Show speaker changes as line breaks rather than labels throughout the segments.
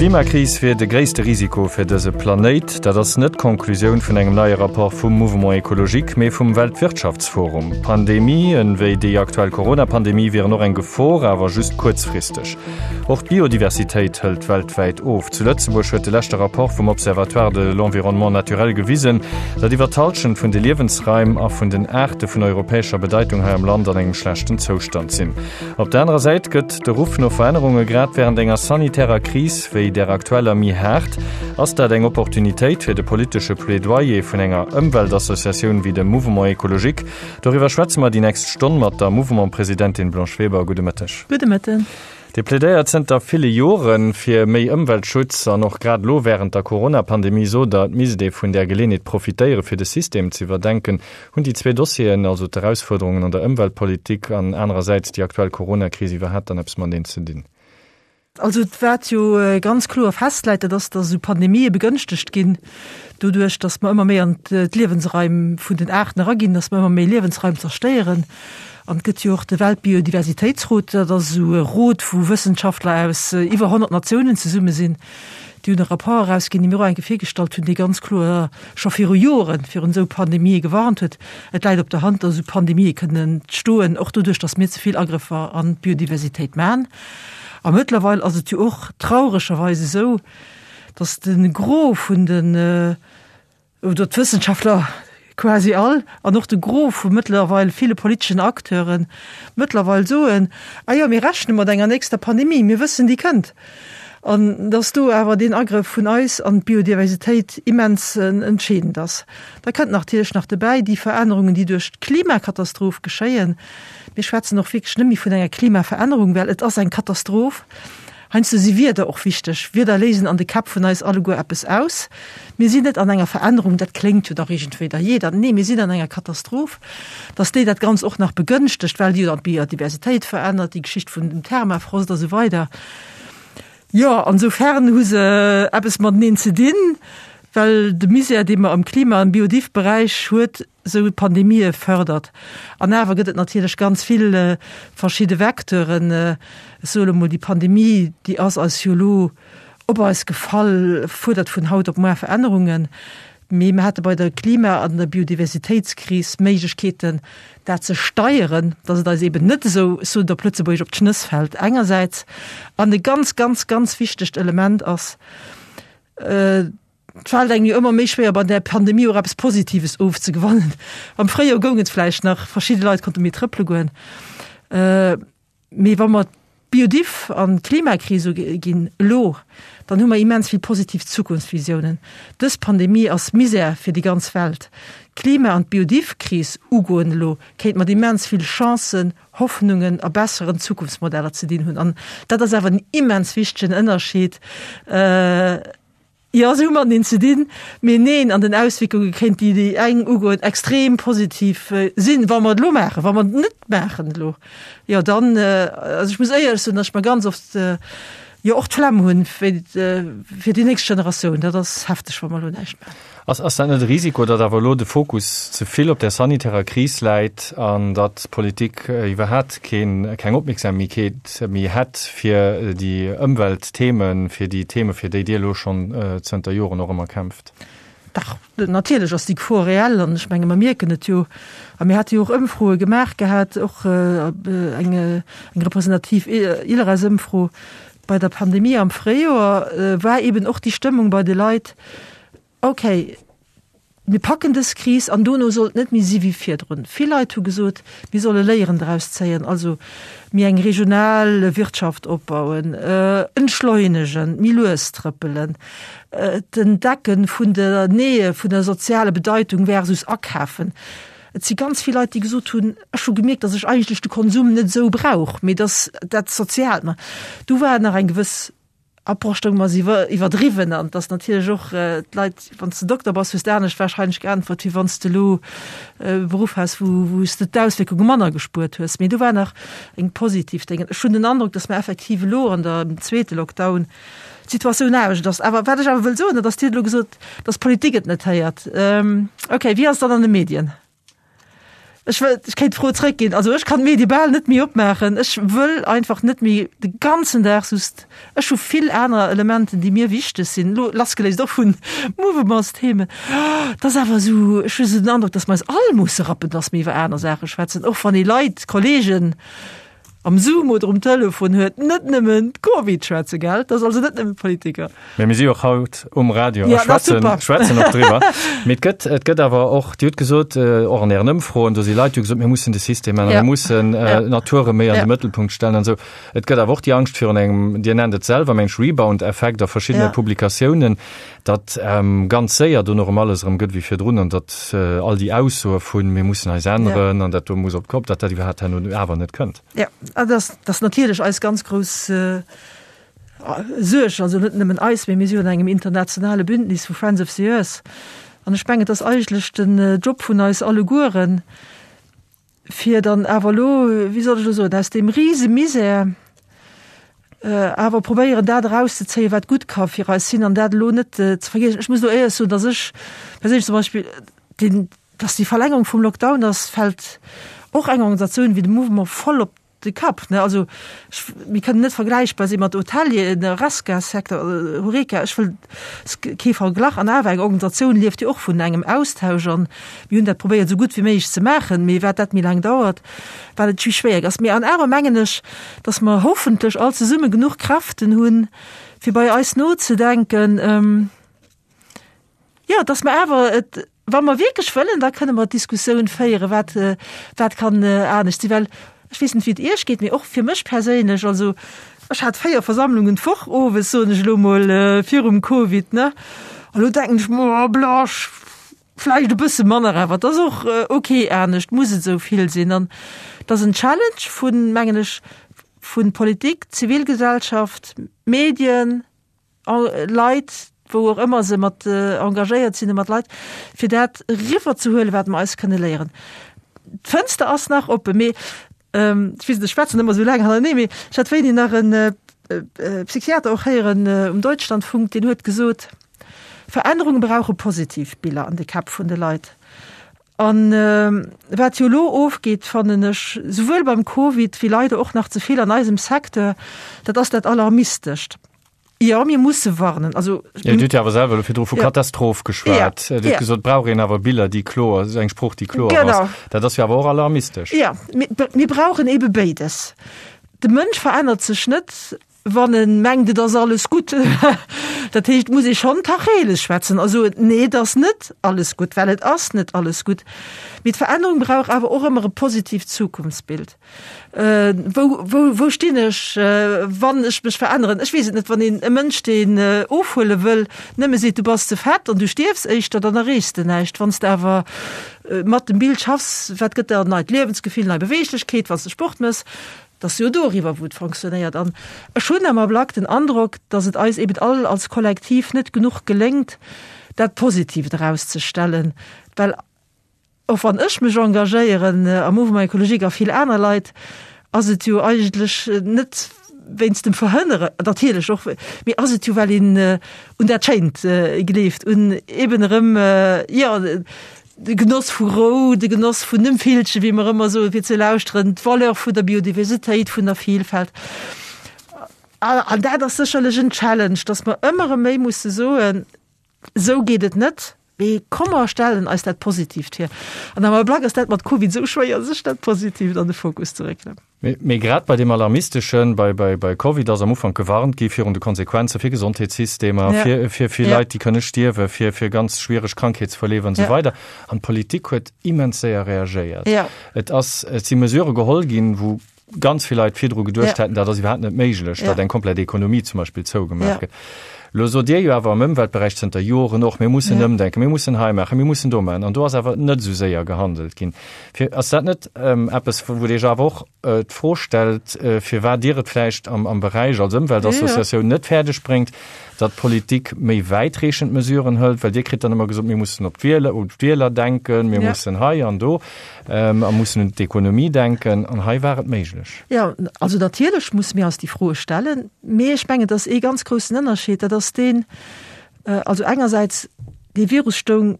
D'Klimakris wier de gréisste Risiko fir dëse Planéit. Dat ass net d'Konklusioun vun engem neie Rapport vum Mouvement Ecologique, mee vum Weltwirtschaftsforum. Pandemien, wéi déi aktuell Corona-Pandemie, wieren och eng Gefor, awer just kuerzfristeg. Och d'Biodiversitéit hëlt weltwäit of. Zu Lëtzebuerg huet de leschte Rapport vum Observatoire de l'environnement naturel gewisen, datt iwwer d'Hallschent vun de Liewensraim a vun den Aarte vun europäescher Bedeitung hei am Land an engem schlechten Zoustand sinn. Op der anerer Säit gëtt de Ruff no Verännerunge grad wärend enger sanitärer Kris wéi där aktueller méi haart. Ass dat eng Opportunitéit fir de politesche Plädoyer vun enger Ëmweltassociatioun wéi dem Mouvement Ecologique? Doriwwer schwätze mer déi nächst Stonn mat der Mouvement-Presidentin Blanche Weber. Gudde Mëtteg.
Gudde Mëtten.
Dir plädéiert zënter ville Jore fir méi Ëmweltschutz an och grad elo wärend der Corona-Pandemie sot Der, et misst ee vun där Geleeënheet profitéiere fir de System ze iwwerdenken. Hunn déi zwee Dossieren, also d'Erausfuerderungen an der Ëmweltpolitik an anerersäits déi aktuell Corona-Kris iwwerhaapt dann eppes mateneen ze dinn?
Also wat jo ganz kloer festläit, dat ass, datt esou Pandemië begënschtegt ginn doduerch, datt mer ëmmer méi an d'Liewensraim vun den Aarten eraginn, datt mer ëmmer méi Liewensraim zerstéieren. An et gëtt jo och de Weltbiodiversitéitsrot, dat ass esou e Rot, wou Wëssenschaftler aus iwwer 100 Natiounen zesumme sinn. Déi hunn e Rapport erausginn, dee mir och eng Kéier virgestallt hunn, dee ganz kloer scho viru Joren virun esou Pandemië gewarnt huet. Et läit op der Hand, datt esou Pandemië kënnen entstoen, och doduerch, datt mir ze vill Agrëffer an d'Biodiversitéit maachen. A mëttlerweil ass et jo och trauregerweis esou, datt de Gros vun den, oder d'Wëssenschaftler quasi all, an och de Gros vu mëttlerweil ville politeschen Acteure mëttlerweil soen, Ah jo, mir rechne mat enger nächster Pandemie, mir wëssen, déi kënnt. An dass do awer deen Agrëff vun eis an d'Biodiversitéit immens entscheedend ass. Da kënnt natierlech nach dobäi déi Verännerungen, déi duerch d'Klimakatastroph geschéien. Mir schwätzen och wierklech net méi vun enger Klimaverännerung, well et ass eng Katastroph. Heiansdo si Wierder och wichteg. Wierder léisen an de Käpp vun eis alleguer eppes aus. Mir sinn net an enger Verännerung, dat kléngt jo dach iergendwéi da jeder. Nee, mir sinn an enger Katastroph. Dass déi dat Ganzt och nach begënschtegt, well déi jo dann d'Biodiversitéit verännert, déi Geschicht vun dem Thermafrost a sou weider. Jo, an soufern hu se eppes mateneen ze dinn, well de Misär, dee mer am Klima am Biodiv-Beräich huet, esou Pandemië fërdert. An awer gëtt et natierlech ganz vill verschidde Vecteuren. Ech soe lo mol, déi Pandemie, déi ass eis jo elo op eis gefall, fuerdert vun haut op muar Verännerungen. Mee mir hate bei der Klima an der Biodiversitéitskris Méiglechkeeten, dat ze steieren, datt et eis eeben net esou, ech soen et op Lëtzebuergesch, op d'Schnëss fält engersäits. An e ganz, ganz, ganz wichtegt Element ass, Et fält engem jo ëmmer méi schwéier bei där Pandemie och eppes Positives ofzegewannen. Am Fréijoer goung et vläicht nach, verschidde Leit konnte méi trëppele goen. Mee wa mer d'Biodiv an d'Klimakris uginn elo, dann hu mer immens vill positiv Zukunftsvisiounen. Dës Pandemie ass Misär fir déi ganz Welt. D'Klima an d'Biodiv-Kris ugoen elo kéint mat immens vill Chancen, Hoffnungen a besseren Zukunftsmodeller ze dinn hunn. An dat ass awer en immens wichtegen Ënnerscheed. Jo, se hu mateneen ze dinn, mee neen, an den Auswierkunge kéint déi déi eng ugoen extrem positiv sinn, wa mer et elo maachen. Wa mer et net maachen elo, jo dann, also ech muss éierlech soen, datt ech mer ganz oft jo och d'Flemm hunn fir déi nächst Generatioun. Dat ass hefteg, wa mer elo näischt maachen.
Ass ass dat net e Risiko, datt awer elo de Fokus ze vill op där sanitärer Kris läit an datt d'Politik iwwerhat keen, keng Opmierksamkeet méi hätt fir déi Ëmweltthemen, fir déi Theme fir déi Dir elo schonn zënter Joren och ëmmer kämpft?
Dach, natierlech ass déi Gefor reell an ech menge mer mierken et jo. A mir hate jo och Ëmfroe gemaach gehat, och eng eng representativ ILReS-Ëmfro bei der Pandemie am Fréijoer war eben och déi Stëmmung bei de Leit, Ok, mir packen dës Kris an dono soll et net méi si wéi virdrun. Vill Leit hu gesot, mir solle Léieren draus zéien, also méi eng regional Wirtschaft opbauen, entschleunegen, méi lues trëppelen, d'Entdecke vun der Nähe, vun der soziale Bedeitung versus akafen. Et si ganz vill Leit, déi gesot hunn, ech hu gemierkt, datt ech eigentlech de Konsum net esou brauch, mee datt dat Soziaalt mer. Do war nach eng gewëss Approche stoung mer iwwer iwwerdriwwen an dass natierlech och d'Leit, wann s de Dokter bass, hues de anescht wahrscheinlech geäntwert, wéi wann s de elo e Beruff has, wou wou s de d'Auswierkunge manner gespuert hues. Mee do war nach eng positiv Déngen. Ech hunn den Androck, dass mer effektiv elo an der am zweete Lockdown d'Situatioun anescht ass. Awer wat ech awer wëll soen, dat ass, Dir hutt elo gesot, dass d'Politik et net héiert. Okay, wéi ass et dann an de Medien? Ech wëll, ech kéint d'Fro zréckginn. Also ech kann d'Medie bal net méi opmaachen. Ech wëll einfach net méi de ganzen Dag just, ech hu vill aner Elementen, déi mir wichteg sinn, elo lassgeléist och vun Mouvementsthemen. Et ass awer esou, ech hu esou den Androck, datt mer eis all musse rappen, datt mir iwwer aner Saache schwätzen, och wann ee Leit, Kollegen, am Zoom oder um Telefon huet, net nëmmen Covid schwätzen, gell? Dat ass also net nëmmen Politiker.
Mee mir si jo och haut um Radio a schwätzen, schwätzen och driwwer. Mee et gëtt, et gëtt awer och, Dir hutt gesot, och an Ären Ëmfroen, do si Leit, déi hu gesot, mir mussen de System änneren, mir mussen d'Natur erëm méi an de Mëttelpunkt stellen an esou. Et gëtt awer och déi Angscht virun engem, Dir nennt et selwer, mengt ech, Rebound-Effekt a verschiddene Publikatiounen, datt ganz séier dono erëm alles erëm gëtt wéi virdrun an datt all déi Aussoe vun mir mussen eis änneren an dat do muss op d'Kopp, datt dat iwwerhaapt herno awer net kënnt.
Jo, dat ass, dat ass natierlech eis ganz grouss Suerg, also net nëmmen eis, mee mir si jo an engem internationale Bündnis vu Friends of the Earth an ech mengen, et ass eigentlech den Job vun eis allegueren, fir dann awer elo, wéi soll ech elo soen, aus deem rise Misär awer probéieren, dat erauszezéien, wat gutt ka fir eis sinn an dat elo net ze vergiessen. Ech muss elo éierlech soen, dass ech perséinlech zum Beispill deen, dass déi Verlängerung vum Lockdown ass, fält och eng Organisatioun wéi de Mouvement voll op de Kapp, ne? Also ech, mir kënnen net vergläichbar si mat Hotelieren, Horesca-Secteur, Horeca, ech wëll kee Verglach. An awer, eng Organisatioun lieft jo och vun engem Austausch an mir hunn dat probéiert esou gutt wéi méiglech ze maachen. Mee wat dat méi laang dauert, wat et méi schwéier ass. Mee an awer mengen ech, datt mer hoffentlech all zesumme genuch Kräften hunn, fir bei eis nozedenken, jo, datt mer awer et, Wa mer wierklech wëllen, da kënne mer d'Diskussioun féieren, wat, wat kann anescht sinn. Well ech weess net, wéi et Iech geet, mee och fir mech perséinlech, also ech hat 4 Versammlungen d'Woch owes, soen ech elo mol, virum Covid, ne? A lo denken ech mer, oh Blasch, vläicht e bësse manner, awer et ass och ok anescht, muss et esou vill sinn? An et ass en Challenge vun, mengen ech, vu Politik, Zivilgesellschaft, Medien, Leit, wou och ëmmer se mat engagéiert sinn, mat Leit, fir dat eriwwer ze huelen, wat mer eis kënne léieren. D'Fënster ass nach oppen, mee ech weess net, ech schwätzen ëmmer esou laang hannertenee, mee ech hat wéini nach e Psychiater och héieren um Deutschlandfunk, deen huet gesot, Verännerunge brauche positiv Biller an de Käpp vun de Leit. An wat jo elo ofgeet, fannen ech, souwuel beim Covid wéi leider och nach ze vill an eisem Secteur, dat ass dat Alarmistescht. Jo, mir musse warnen. Also,
Ja, Dir hutt jo awer selwer elo virdru vu Katastroph geschwat. Dir hutt gesot, et brauch een awer Biller, déi kloer, eng Sprooch, déi kloer ass. Dat ass jo awer och alarmistesch.
Jo, mir brauchen eebe béides. De Mënsch verännert sech net, wann e mengt, et ass alles gutt. Dat heescht, et muss ee schonn Tacheles schwätzen a soen, Nee, et ass net alles gutt, well et ass net alles gutt. Mee d'Verännerung brauch awer och ëmmer e positiivt Zukunftsbild. Wou, wou, wou stinn ech, wann ech mech veränneren? Ech weess et net, wann een e Mënsch, deen ofhuele wëll, nëmme seet, du bass ze fett an du stierfs éischter, dann erreechs de näischt. Wann s de awer mat dem Bild schaffs, wat gëtt der en neit Liewensgefill, nei Beweeglechkeet, wann s de Sport méchs, Et ass jo doriwwer, wou et fonctionnéiert. An ech hunn am Ablack den Androck, datt et eis eben all als Kollektiv net genuch geléngt, dat Positiivt erauszestellen. Well och wann ech mech engagéieren am Mouvement écologique a vill aner Leit, ass et jo eigentlech net wéinst dem Verhënnere, natierlech och, mee ass et jo, well een un dat Schéint gleeft, un eben erëm, jo, De Genoss vu Rou, de Genoss vun dem Villchen, wéi mer ëmmer soen, fir ze lauschteren, d'Valeur vun der Biodiversitéit, vun der Vielfalt. An dat ass sécherlech en Challenge, dass mer ëmmer erëm méi musse soen, Esou geet et net, mee komm mer stellen eis dat Positiivt hier. An am Ablack ass dat mat Covid esou schwéier, sech dat Positiivt an de Fokus ze réckelen.
Mee grad bei deem Alarmisteschen, bei, bei, bei Covid ass am Ufank gewarnt gi virun de Konsequenze fir Gesondheetssystemer, ja. fir, fir, fir ja. Leit, déi kënne stierwen, fir, fir ganz schwiereg Krankheetsverleef an esou ja. weider. An d'Politik huet immens séier reagéiert. Ja. Et ass, et si Mesurë geholl ginn, wou ganz vill Leit virdru geduecht ja. hätten, dat ass iwwerhaapt net méiglech, ja. datt eng komplett Ekonomie zum Beispill zougemaach ja. gëtt. Lo sot Dir jo awer am Ëmweltberäich zënter Joren och, mir mussen ja. ëmdenken, mir mussen hei maachen, mir mussen do maachen. An do ass awer net esou séier gehandelt ginn. Fir, ass dat net eppes, wou Dir Iech awer och d'Fro stellt, firwat Dir et vläicht am, am Beräich als Ëmweltassociatioun net fäerdeg bréngt, datt d'Politik méi wäitreechend Mesuren hëlt? Well Dir kritt dann ëmmer gesot, mir mussen op d'Wieler, un d'Wieler denken, mir mussen hei an do a mussen un d'Ekonomie denken. An hei war et méiglech.
Jo, also natierlech musse mir eis déi Froe stellen. Mee ech mengen, et ass ee ganz groussen Ënnerscheed, dat ass deen, also engersäits, dee Virus stoung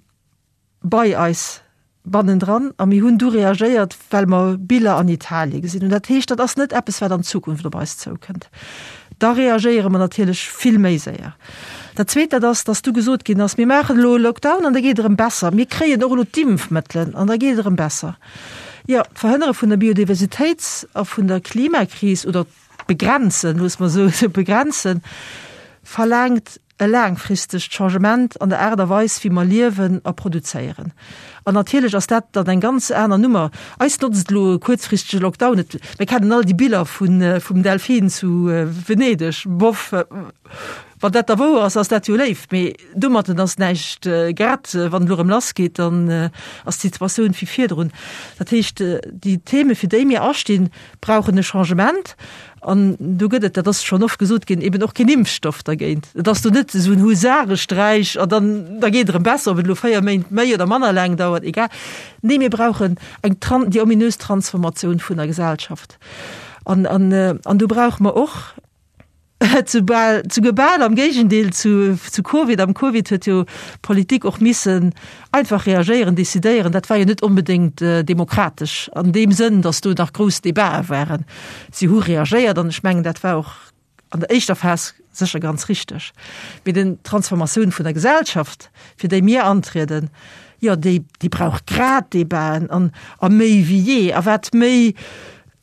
bei eis. Bannendran a mir hunn du reagéiert, well mer Biller an Italie gesinn hunn. Dat heescht, dat ass net eppes, wat an Zukunft op eis zoukënnt. Da reagéiere mer natierlech vill méi séier. Dat Zweet, dat ass, dass du gesot ginn ass, mir maachen elo e Lockdown an da geet et erëm besser. Mir kréien och elo d'Impfmëttelen an da geet et erëm besser. Jo, d'Verhënnere vun der Biodiversitéits a vun der Klimakris oder d'Begrenzen, loosse mer esou begrenzen, verlaangt e laangfristegt Changement an der Aart a Weis, wéi mer liewen a produzéieren. An natierlech ass dat dann eng ganz aner Nummer. Eis notzt elo e kuerzfristege Lockdown net. Mir kennen all déi Biller vun, vum Delfin zu Venedeg. Boff, wann dat da wouer ass, ass dat jo léif, mee domatten ass näischt gerett. Wann et elo erëm lassgeet, dann ass d'Situatioun wéi virdrun. Dat heescht, déi Theme fir déi mir astinn, brauchen e Changement. An do gëtt et, dat ass schonn oft gesot ginn, eben och keen Impfstoff dergéint. Et ass do net esou en Husaresträich an dann, da geet et erëm besser, ob et elo 4 Méint méi oder manner laang dauert, egal. Nee, mir brauchen eng Tran-, déi ominös Transformatioun vun der Gesellschaft. An, an, an do brauche mer och, Soubal, souguer bal am Géigendeel zu, zu Covid. Am Covid huet jo d'Politik och missen einfach reagéieren, decidéieren. Dat war jo net onbedéngt demokratesch an deem Sënn, datt do nach grouss Debatë waren. Si hu reagéiert an ech mengen, dat war och an der éischter Phas sécher ganz richteg. Mee den d'Transformatioun vun der Gesellschaft, fir déi mir antrieden, jo, déi, déi brauch grad Debaten an, a méi wéi jee. A wat méi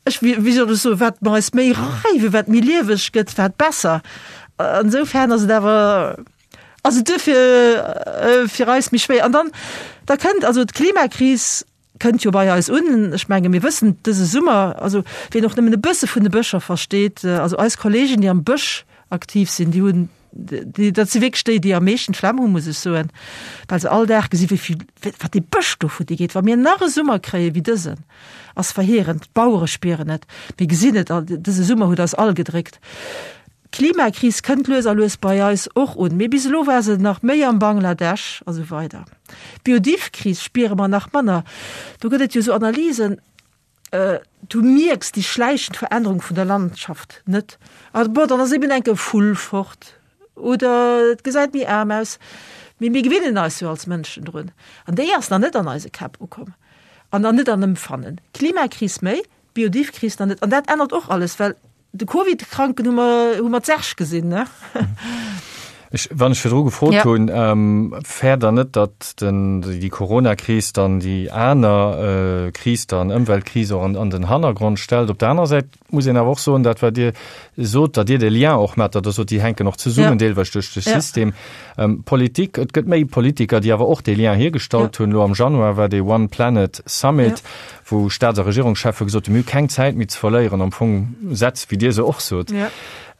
Ech, wéi soll ech soen, wat mer eis méi reiwen, wat méi lieweg gëtt, wat besser. Insofern ass et awer, ass et duerfir fir eis méi schwéier. An dann, da kënnt also d'Klimakris kënnt jo bei eis un. Ech menge mir wëssen dëse Summer, also wien och nëmmen e bësse vun de Bëscher versteet, also eis Kollegen, déi am Bësch aktiv sinn, déi hunn, déi, dat si wierklech déi, déi am meeschten d'Flemm hunn, muss ech soen, well se all Dag gesi wéi vill, wat dee Bësch do futti geet. Wa mir nach e Summer kréie wéi dësen, ass verheerend. D'Bauere spieren et, mir gesinn et all, dëse Summer huet eis all gedréckt. D'Klimakris kënnt lues a lues bei eis och un, mee bis elo war se nach méi am Bangladesch a sou weider. D'Biodiv-Kris spiere mer nach manner. Do gëtt et jo esou Analysen, Du mierks déi schläichend Verännerung vun der Landschaft net. Also bon, dann ass eben enke Vull fort oder et gesäit méi aarm aus. Mee mir gewinnen eis jo als Mënschen drun. An déi ass nach net an eise Käpp ukomm an an net an Empfannen. Klimakris méi, Biodivkris nach net. An dat ännert och alles, well De Covid-Kranken hu mer, hu mer d'Särg gesinn, ne?
Ech, wann ech virdru gefrot ja. hunn, ähm, fäert der net, datt den, déi Corona-Kris dann déi aner äh, Kris dann, Ëmweltkris och an, an den Hannergrond stellt? Op der anerer Säit muss een awer och soen, dat wat Dir sot, datt Dir de Lien och mat, datt Der sot, déi hänken och zesummen, ja. deelweis duerch de ja. System. Ähm, Politik, et gëtt méi Politiker, déi awer och dee Lien hiergestallt ja. hunn. Lo am Januar war dee One Planet Summit. Ja. wou Staats a Regierungscheffe gesot hunn, mir hu keng Zäit méi ze verléieren, am Fong Sätz, wéi Dir se och sot. Ja.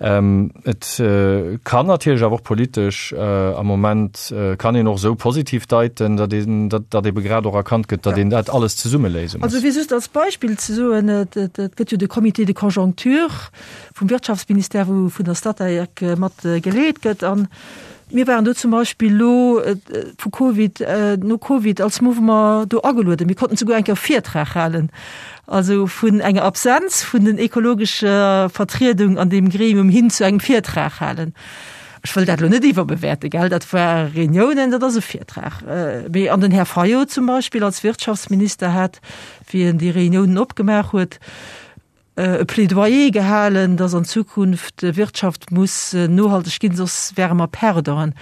Ähm, et äh, kann natierlech awer och politesch äh, am Moment äh, kann een och esou positiv deiten, datt een, datt, datt ebe grad och erkannt gëtt, datt ja. een dat alles zesumme léise muss.
Also fir just als Beispill ze soen, et, et, et gëtt jo de Comité de conjoncture vum Wirtschaftsministère, wou vun der Statec mat geleet gëtt an Mir waren do zum Beispill elo vu Covid, no Covid als Mouvement do agelueden. Mir konnten souguer eng Kéier e Virtrag halen. Also vun enger Absenz vun den ekologescher Vertriedung an deem Gremium hin zu engem Virtrag halen. Ech wëll dat elo net iwwerbewäerte, gell, dat war Reuniounen, dat ass e Virtrag. Mee an den Här Fayot zum Beispill als Wirtschaftsminister hat, wéi en déi Reuniounen opgemaach huet, e Plädoyer gehalen, dass an Zukunft d'Wirtschaft muss nohalteg ginn, soss wäre mer Perdanten.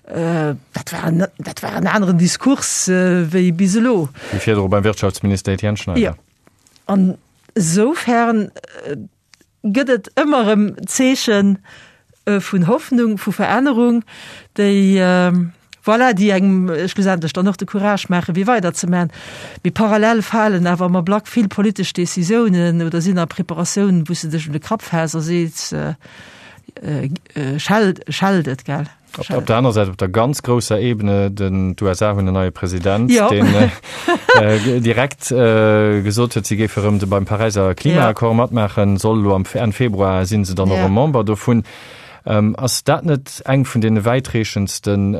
Dat war en, dat war en aneren Diskurs wéi bis elo.
Wéi virdru beim Wirtschaftsminister Etienne Schneider.
Jo. An esoufern gëtt et ëmmer erëm Zeechen vun Hoffnung, vu Verännerung, déi, voilà, déi engem schlussendlech dann och de Courage maachen, fir weiderzemaachen. Mee parallel falen awer am Ablack vill politesch Décisiounen oder sinn a Preparatioun, wou s de dech un de Kapp fäss a sees, Schellt, schellt et, gell?
Op, op der aner Säit, op der ganz grousser Ebene, den, d'USA hunn en neie President, jo. deen äh, direkt äh, gesot huet, si géife rëm de beim Paräiser Klimaaccord ja. matmaachen, soll elo am Enn Februar sinn se dann och ja. Member dovun. Ass dat net eng vun deene wäitreechendsten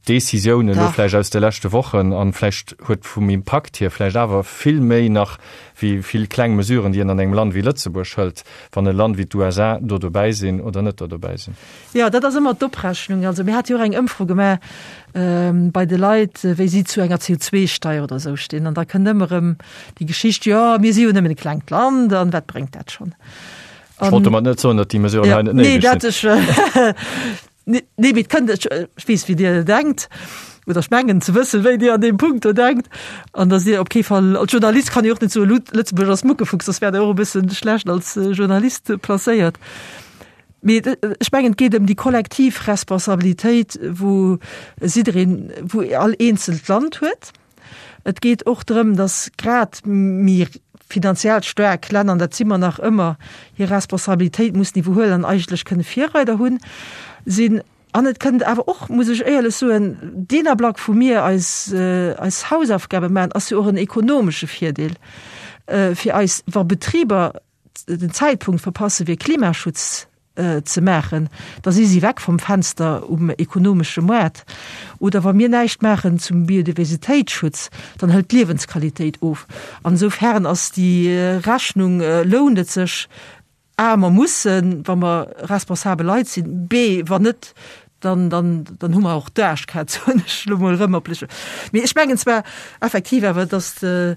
Decisiounen elo vläicht aus de leschte Wochen an vläicht huet vum Impakt hier vläicht awer vill méi nach wéi vill kleng Mesuren, déi een an engem Land wéi Lëtzebuerg hëlt, wann e Land wéi d'USA do dobäi sinn oder net do dobäi sinn?
Jo, dat ass ëmmer d'Oprechnung. Also mir hate jo och eng Ëmfro gemaach bei de Leit, wéi si zu enger CO2-Steier oder esou stinn. An da kënnt ëmmer erëm déi Geschicht, jo, mir si jo nëmmen e klengt Land an wat bréngt dat schonn?
Ech wollt domat net soen, datt déi Mesuren hei net néideg
sinn. Nee, mee et kënnt, ech weess, wéi Dir denkt, oder ech mengen ze wëssen, wéi Dir an deem Punkt do denkt, an datt Dir op kee Fall, als Journalist kann ee och net soen, Lëtzebuerg ass Muckefuchs, soss wäert Der och e bësse schlecht als Journalist placéiert. Mee ech mengen, et geet ëm déi kollektiv Responsabilitéit, wou jiddereen, wou all eenzelt Land huet. Et geet och drëm, datt grad méi finanziell staark Länner, an dat si mer nach ëmmer, hir Responsabilitéit mussen iwwerhuelen an eigentlech kënne Virreider hunn, sinn. An et kënnt awer och, muss ech éierlech soen, deen Ablack, wou mir eis, eis Hausaufgabe maachen, ass jo och en ekonomesche Virdeel fir eis, wa Betriber den Zäitpunkt verpasse fir Klimaschutz ze maachen, da si si weg vum Fenster um ekonomesche Moart. Oder wa mir näischt maachen zum Biodiversitéitsschutz, dann hëlt d'Liewensqualitéit of. An esoufern ass déi Rechnung, lount et sech, a mer mussen, wa mer responsabel Leit sinn, b wann net, dann, dann, dann hu mer och d'Aarschkaz, soen ech elo mol erëm op lech. Mee ech mengen zwar effektiv awer, datt de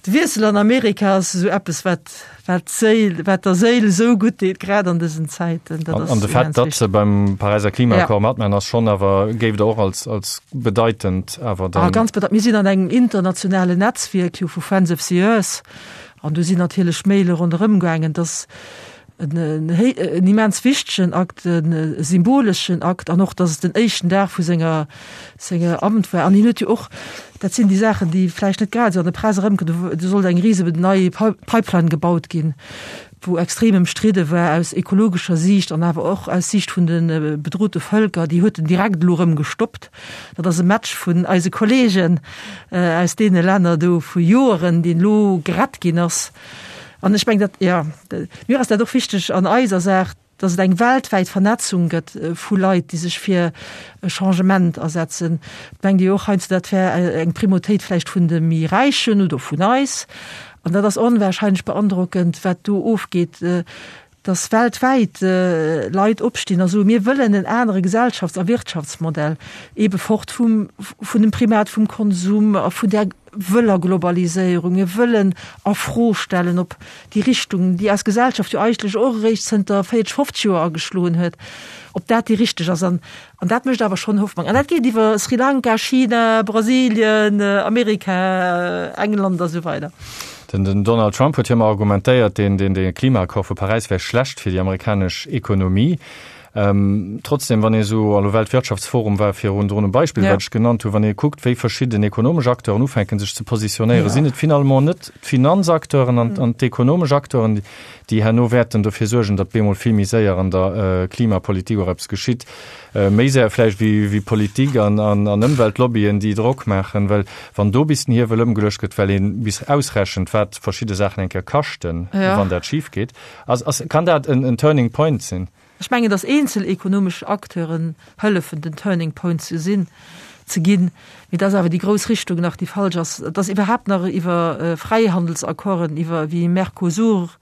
Wiessel an Amerika ass esou eppes, wat, wat d'Séil, wat der Séil esou gutt deet, grad an dësen Zäiten.
Dat ass An de Fait, datt se beim Paräiser Klimaaccord matmaachen, ass schonn awer, géif Der och als, als bedeitend awer
dann. Ah, ganz bedeitend. Mir sinn an engem internationalen Netzwierk jo vu Friends of the Earth an do sinn natierlech Maile ronderëm gaangen, datt en immens wichtegen Akt, e symboleschen Akt an och, datt et den éischten Dag vu senger senger Amt war. An hien huet jo och, dat sinn déi Saachen, déi vläicht net grad esou an der Press erëmkommen, do sollt eng rise nei Pipeline gebaut ginn, wou extrem ëmstridde war aus ekologescher Siicht an awer och aus Siicht vun de bedrote Vëlker. Déi huet en direkt elo erëm gestoppt. Dat ass e Match vun eise Kollegen aus deene Länner do vu Joeren, deen elo gerett ginn ass. An ech mengen, dat, jo, mir ass dat och wichteg an eiser Saach, dass et eng weltwäit Vernetzung gëtt vu Leit, déi sech fir e Changement asetzen. Et mengt ee jo och heiansdo, dat wär eng Primautéit vläicht vun de méi Räichen oder vun eis. An dat ass onwahrscheinlech beandrockend, wat do ofgeet, dass weltwäit Leit opstinn a soen, mir wëllen en anere Gesellschafts a Wirtschaftsmodell, eebe fort vum, vun dem Primat vum Konsum a vun där wëller Globaliséierung. Mir wëllen a Fro stellen, ob déi Richtung, déi eis Gesellschaft jo eigentlech och eréischt zënter 40, 50 Joer ageschloen huet, ob dat déi richteg ass. An An dat mécht awer schonn Hoffnung. An dat geet iwwer Sri Lanka, China, Brasilien, Amerika, England a sou weider.
Den Donald Trump huet jo ëmmer argumentéiert, deen dee Klimaaccord vu Paräis wär schlecht fir déi amerikanesch Ekonomie. Trotzdem, wann ee sou, elo Weltwirtschaftsforum war virun drun e Beispill, wat ech genannt hunn, wann ee kuckt, wéi verschidden ekonomesch Acteuren ufänken, sech ze positionéieren, sinn et finalement net d'Finanzacteuren an d'ekonomesch Acteuren, déi herno wäerten dofir suergen, datt bemol vill méi séier an der Klimapolitik och eppes geschitt, méi séier vläicht wéi Politik an Ëmweltlobbyen, déi Drock maachen, well wann do bis den Hiewel ëmgeluecht gëtt, well ee bis ausrechent, wat verschidde Saachen eng Kéier kaschten, wann dat schif geet, ass, kann dat en Turning Point sinn.
Ech mengen, datt eenzel ekonomesch Acteuren hëllefen, den Turning Point ze sinn, ze ginn, mee datt awer déi grouss Richtung nach déi falsch ass, datt iwwerhaapt nach iwwer Fräihandelsaccorden, iwwer wéi Mercosur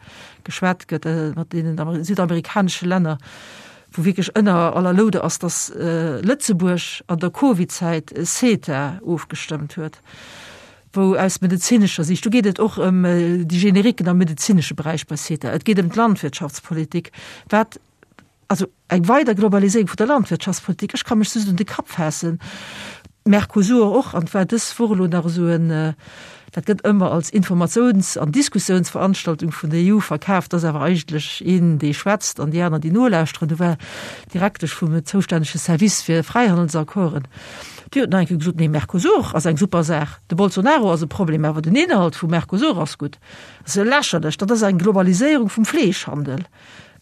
geschwat gëtt mat deenen südamerikanesche Länner, wou wierklech ënner aller Loude ass, datt Lëtzebuerg an der Covid-Zäit CETA ofgestëmmt huet. wou aus medezinescher Siicht, do geet et och ëm déi Generiquen am medezinesche Beräich bei CETA, et geet ëm d'Landwirtschaftspolitik, wat, also eng weider Globaliséierung vun der Landwirtschaftspolitik, ech ka mech just un de Kapp faassen, Mercosur och, an et war dës Woch elo nach esou en, dat gëtt ëmmer als Informatiouns an Diskussiounsveranstaltung vun der EU verkaaft, ass awer eigentlech een, dee schwätzt an déi aner, déi nolauschteren. Do war d'Direktesch vum zoustännege Service fir Fräihandelsaccorden, Déi huet nach eng Kéier gesot, nee, Mercosur ass eng super Saach, de Bolsonaro ass e Problem, awer den Inhalt vum Mercosur ass gutt. Dat ass jo lächerlech, dat ass eng Globaliséierung vum Fleeschhandel,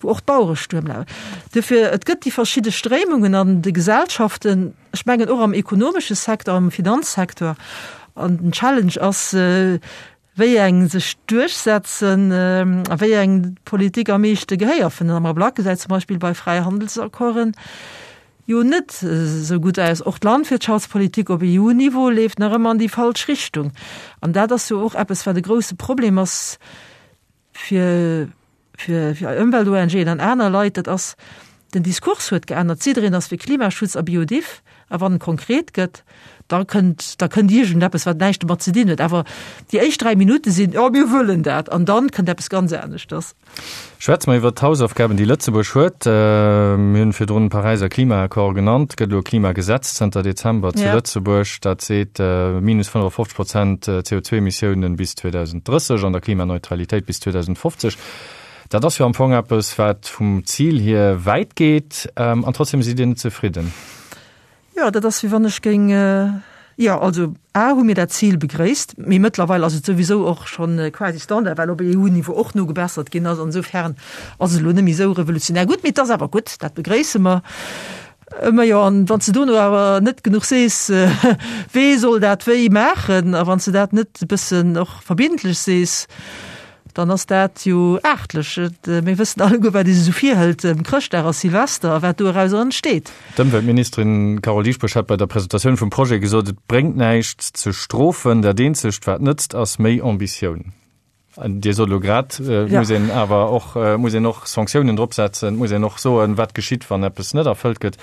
wou och d'Bauere Stuerm lafen. Duerfir, et gëtt déi verschidde Stréimungen an de Gesellschaften, ech mengen och am ekonomesche Secteur, am Finanzsecteur, an den Challenge ass. Wéi eng sech duerchsetzen a wéi eng d'Politik am meeschte Gehéier fënnt. Am Ablack gesäit zum Beispill bei Fräihandelsaccorden jo net esou gutt aus. Och d'Landwirtschaftspolitik op EU-Niveau leeft nach ëmmer an déi falsch Richtung. An dat ass jo och eppes, wat e grousse Problem ass fir fir Ëmwelt-ONGen an aner Leit, dat ass, den Diskurs huet geännert. Jiddereen ass fir Klimaschutz a Biodiff, a wann et konkret gëtt, da kënnt, da kënnt iergendeppes, wat näischt domat ze dinn huet. Awer déi éischt 3 Minutte sinn, Jo, mir wëllen dat, an dann kënnt eppes ganz aneschters.
Schwätze mer iwwert d'Hausaufgaben, déi Lëtzebuerg huet. Mir hunn virdrun de Paräiser Klimaaccord genannt. Et gëtt elo e Klimagesetz zënter Dezember zu Lëtzebuerg, dat seet, minus 55 Prozent CO2-Emissiounen bis 2030 an der Klimaneutralitéit bis 2050. Dat ass jo am Fong eppes, wat vum Zil hier wäit geet. An trotzdem sidd Dir net zefridden.
Jo, dat ass wéi wann ech géing, jo, also a hu mir dat Zil begréisst, mee mëttlerweil ass et souwisou och schonn quasi Standard, well op EU-Niveau och nogebessert ginn ass. Insofern ass et elo net méi esou revolutionär gutt, mee et ass awer gutt, dat begréisse mer. Majo, an wann s de dono awer net genuch sees, wee soll dat wéi maachen, a wann s de dat net e bëssen och verbindlech sees, Dann ass dat jo aartlech. Mir wëssen alleguer, wat ee sech esou virhëlt ëm Chrëschtdag a Silvester a wat doerauser entsteet.
D'Ëmweltministerin Carole Dieschbourg hat bei der Presentatioun vum Projet gesot, et bréngt näischt ze strofen, dat eenzegt wat nëtzt ass méi Ambitioun. Dir sot elo grad, et muss een awer och, muss een och Sanktiounen drop setzen, et muss een och soen, wat geschitt, wann eppes net erfëllt gëtt.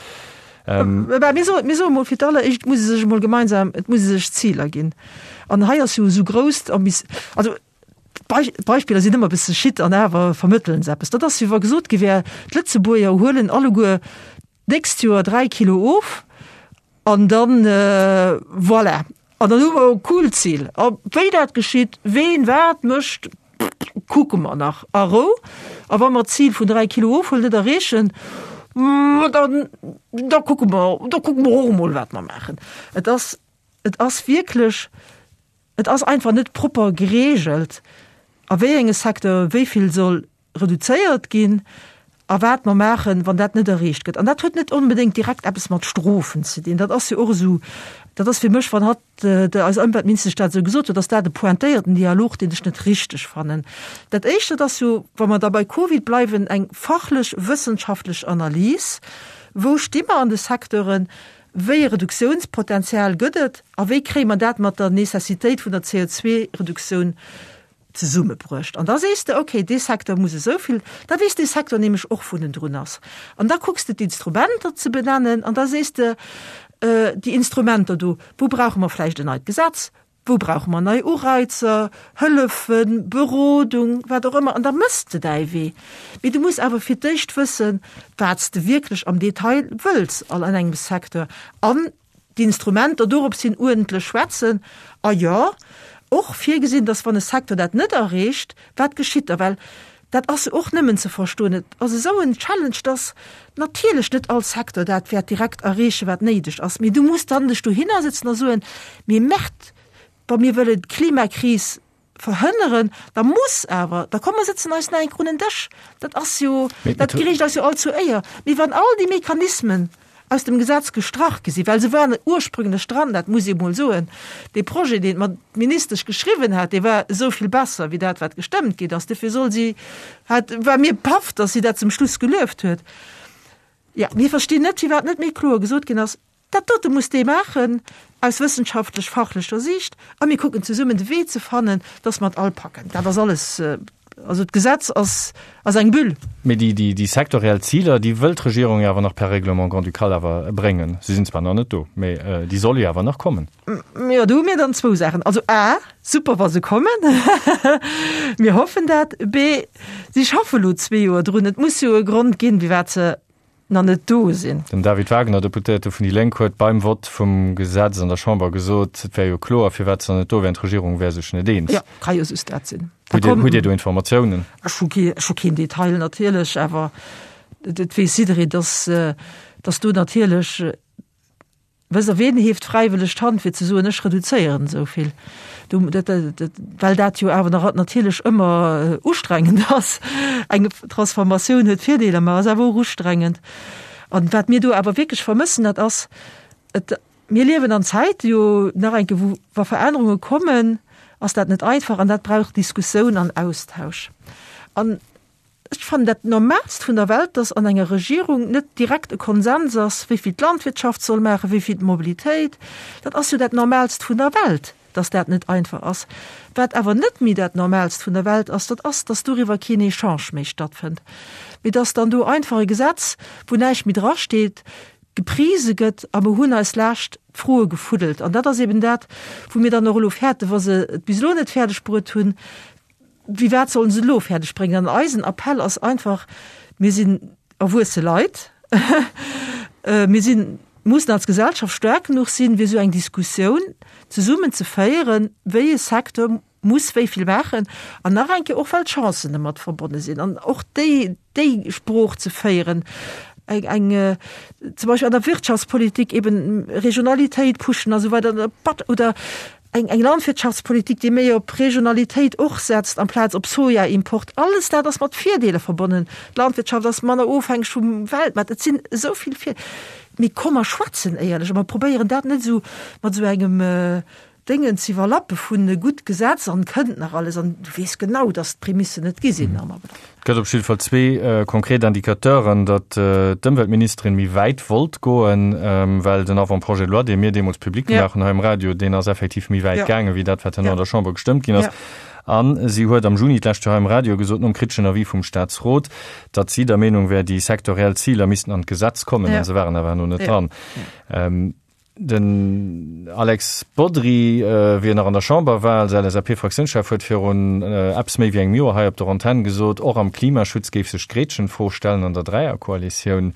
Mä mir soen, mir soe mol fir d'alleréischt, et muss ee sech emol gemeinsam, et muss ee sech Ziler ginn. An hei ass jo esou grouss d'Ambi-, also D'Beispiller sinn ëmmer e bësse schitt an awer vermëttelen se eppes. Dat ass, wéi wa gesot gi wär, d'Lëtzebuerger huelen alleguer d'nächst Joer 3 Kilo of an dann, voilà, an dann hu mer e coolt Zil. A wéi dat geschitt, ween wat mécht, kucke mer nach a Rou. A wa mer d'Zil vun 3 Kilo ofhuelen net erreechen, dann, da kucke mer, da kucke mer och emol, wat mer maachen. Et ass, et ass wierklech Et ass einfach net propper geregelt, a wéi enge Secteure wéi vill soll reduzéiert ginn a wat mer maachen, wann dat net erreecht gëtt. An dat huet net onbedéngt direkt eppes mat Strofen ze dinn. Dat ass jo och esou, dat ass fir mech, wann hatt, eis Ëmweltministesch dat esou gesot huet, ass dat e pointéierten Dialog, deen ech net richteg fannen. Dat Éischt, dat ass jo, wa mer da bei Covid bleiwen, eng fachlech, wëssenschaftlech Analys, Wou sti mer an de Secteuren? Wéi e Reduktiounspotenzial gëtt et a wéi kréie mer dat mat der Necessitéit vun der CO2-Reduktioun zesummebruecht? An da sees de, okay, dee Secteur muss esou vill, da weess dee Secteur nämlech och, wou en drun ass. An da kucks de d'Instrumenter ze benennen an da sees de, déi Instrumenter do, wou brauche mer vläicht en neit Gesetz, Wou brauche mer nei Ureizer, Hëllefen, Berodung, wat och ëmmer? An da mëss de däi Wee. Mee du muss awer fir d'éischt wëssen, wat s de wierklech am Detail wëlls an engem Secteur an d'Instrumenter dorops hin uerdentlech schwätzen. A jo, och virgesinn, dass wann e Secteur dat net erreecht, wat geschitt da? Well dat ass jo och nëmmen ze verstoen, et ass esou en Challenge, dass natierlech net all Secteur dat wäert direkt erreechen, wat néideg ass. Mee du muss dann dech dohinner sëtzen a soen, Mee Merde, wa mir wëllen d'Klimakris verhënneren, da muss awer, da komm mer sëtzen eis nach eng Kéier un en Dësch. Dat ass jo, dat gereecht eis jo all zur Éier. Mee wann all déi Mechanismen aus dem Gesetz gestrach gi sinn, well se waren ursprünglech dran, dat muss ee mol soen, dee Projet, deen d'Ministesch geschriwwen hat, dee war esou vill besser wéi dat, wat gestëmmt ginn ass. Dofir soll si, hat, war mir paff, datt si dat zum Schluss gelueft huet. Jo, mir verstinn net, firwat net méi kloer gesot ginn ass, Dat dote muss dee maachen aus wëssenschaftlech-fachlecher Siicht a mir kucken zesummen de Wee ze fannen, dass mer et all packen. Dat ass alles, also d'Gesetz ass, ass eng Bulle.
Mee déi, déi, déi sektoriell Ziler, déi wëll d'Regierung jo awer nach per Règlement grand-ducal awer bréngen. Se sinn zwar nach net do, mee déi solle jo awer nach kommen.
Jo, do hu mir dann zwou Saachen. Also a, super wa se kommen, mir hoffen dat. B, si schaffe lo zwee Joer drun, et muss jo e Grond ginn, firwat se nach net do sinn.
Den David Wagner, Deputéierte vun déi Lénk, huet beim Vott vum Gesetz an der Chamber gesot, et wär jo kloer, firwat se nach net do wären, d'Regierung wär sech net eens.
Jo, ka jo just dat sinn.
Hutt Dir, hutt Dir do Informatiounen?
Ech hu kee, ech hu keen Detail natierlech, awer et weess jidderee, dass, dass do natierlech, Wësst Der, ween hieft fräiwëlleg d'Hand fir ze soen, ech reduzéieren esou vill? Do, dat, dat, well dat jo awer nach natierlech ëmmer ustrengend ass. Eng Transformatioun huet Virdeeler, ma ass awer och ustrengend. An wat mir do awer wierklech vermëssen, dat ass, et, mir liewen an Zäite jo nach eng Kéier, wou, wa Verännerunge kommen. ass dat net einfach an dat brauch Diskussioun an Austausch. An ech fannen dat Normalst vun der Welt, dass an enger Regierung net direkt e Konsens ass, wéi vill d'Landwirtschaft soll maachen, wéi vill d'Mobilitéit. Dat ass jo dat Normalst vun der Welt, dass dat net einfach ass. Wat awer net méi dat Normalst vun der Welt ass, dat ass, dass doriwwer keen Echange méi stattfënnt, mee dass dann do einfach e Gesetz, wou näischt méi drasteet, geprise gëtt a mer hunn eis lescht d'Froe gefuddelt. An dat ass eben dat, wou mir dann och elo fäerten, wa se et bis elo net fäerdeg bruet hunn, wéi wat sollen se elo fäerdeg bréngen? An eisen Appell ass einfach, Mir sinn erwuesse Leit, mir sinn, mussen als Gesellschaft staark genuch sinn, fir esou eng Diskussioun zesummen ze féieren, wéi e Secteur muss wéi vill maachen an nach eng Kéier och, well d'Chancen domat verbonne sinn an och déi, déi Sprooch ze féieren, eng, eng zum Beispill an der Wirtschaftspolitik eben Regionalitéit pushen a sou weider oder eng, eng Landwirtschaftspolitik, déi méi op Regionalitéit och setzt amplaz op Sojaimport. Alles dat ass mat Virdeeler verbonnen. D'Landwirtschaft ass manner ofhängeg vum Weltmaart. Et sinn esou vill Vir. Mee komm mer schwätzen éierlech a mer probéieren dat net esou mat esou engem Déngen ze iwwerlappe vun e gutt Gesetz an kënnt nach alles an du weess genau, datt d'Prämissen net gi sinn.
Et gëtt op jidde Fall zwee konkret Indicateuren, datt d'Ëmweltministerin méi wäit wollt goen, well den Avant-projet de loi, dee mir deemools public gemaach hunn hei um Radio, deen ass effektiv méi wäit gaangen, wéi dat, wat herno an der Chamber gestëmmt ginn ass. A si huet am Juni d'lescht Joer hei um Radio gesot, nom kriteschen Avis vum Staatsrot, datt si der Meenung wär, déi sektoriell Ziler missten an d'Gesetz kommen, a se waren awer herno net dran. Den Alex Bodry, wéi en nach an der Chamber war als LSAP-Fraktiounschef, huet virun eppes méi wéi engem Joer hei op der Antenn gesot, och am Klimaschutz géif sech d'Gretchenfro stellen an der Dräierkoalitioun.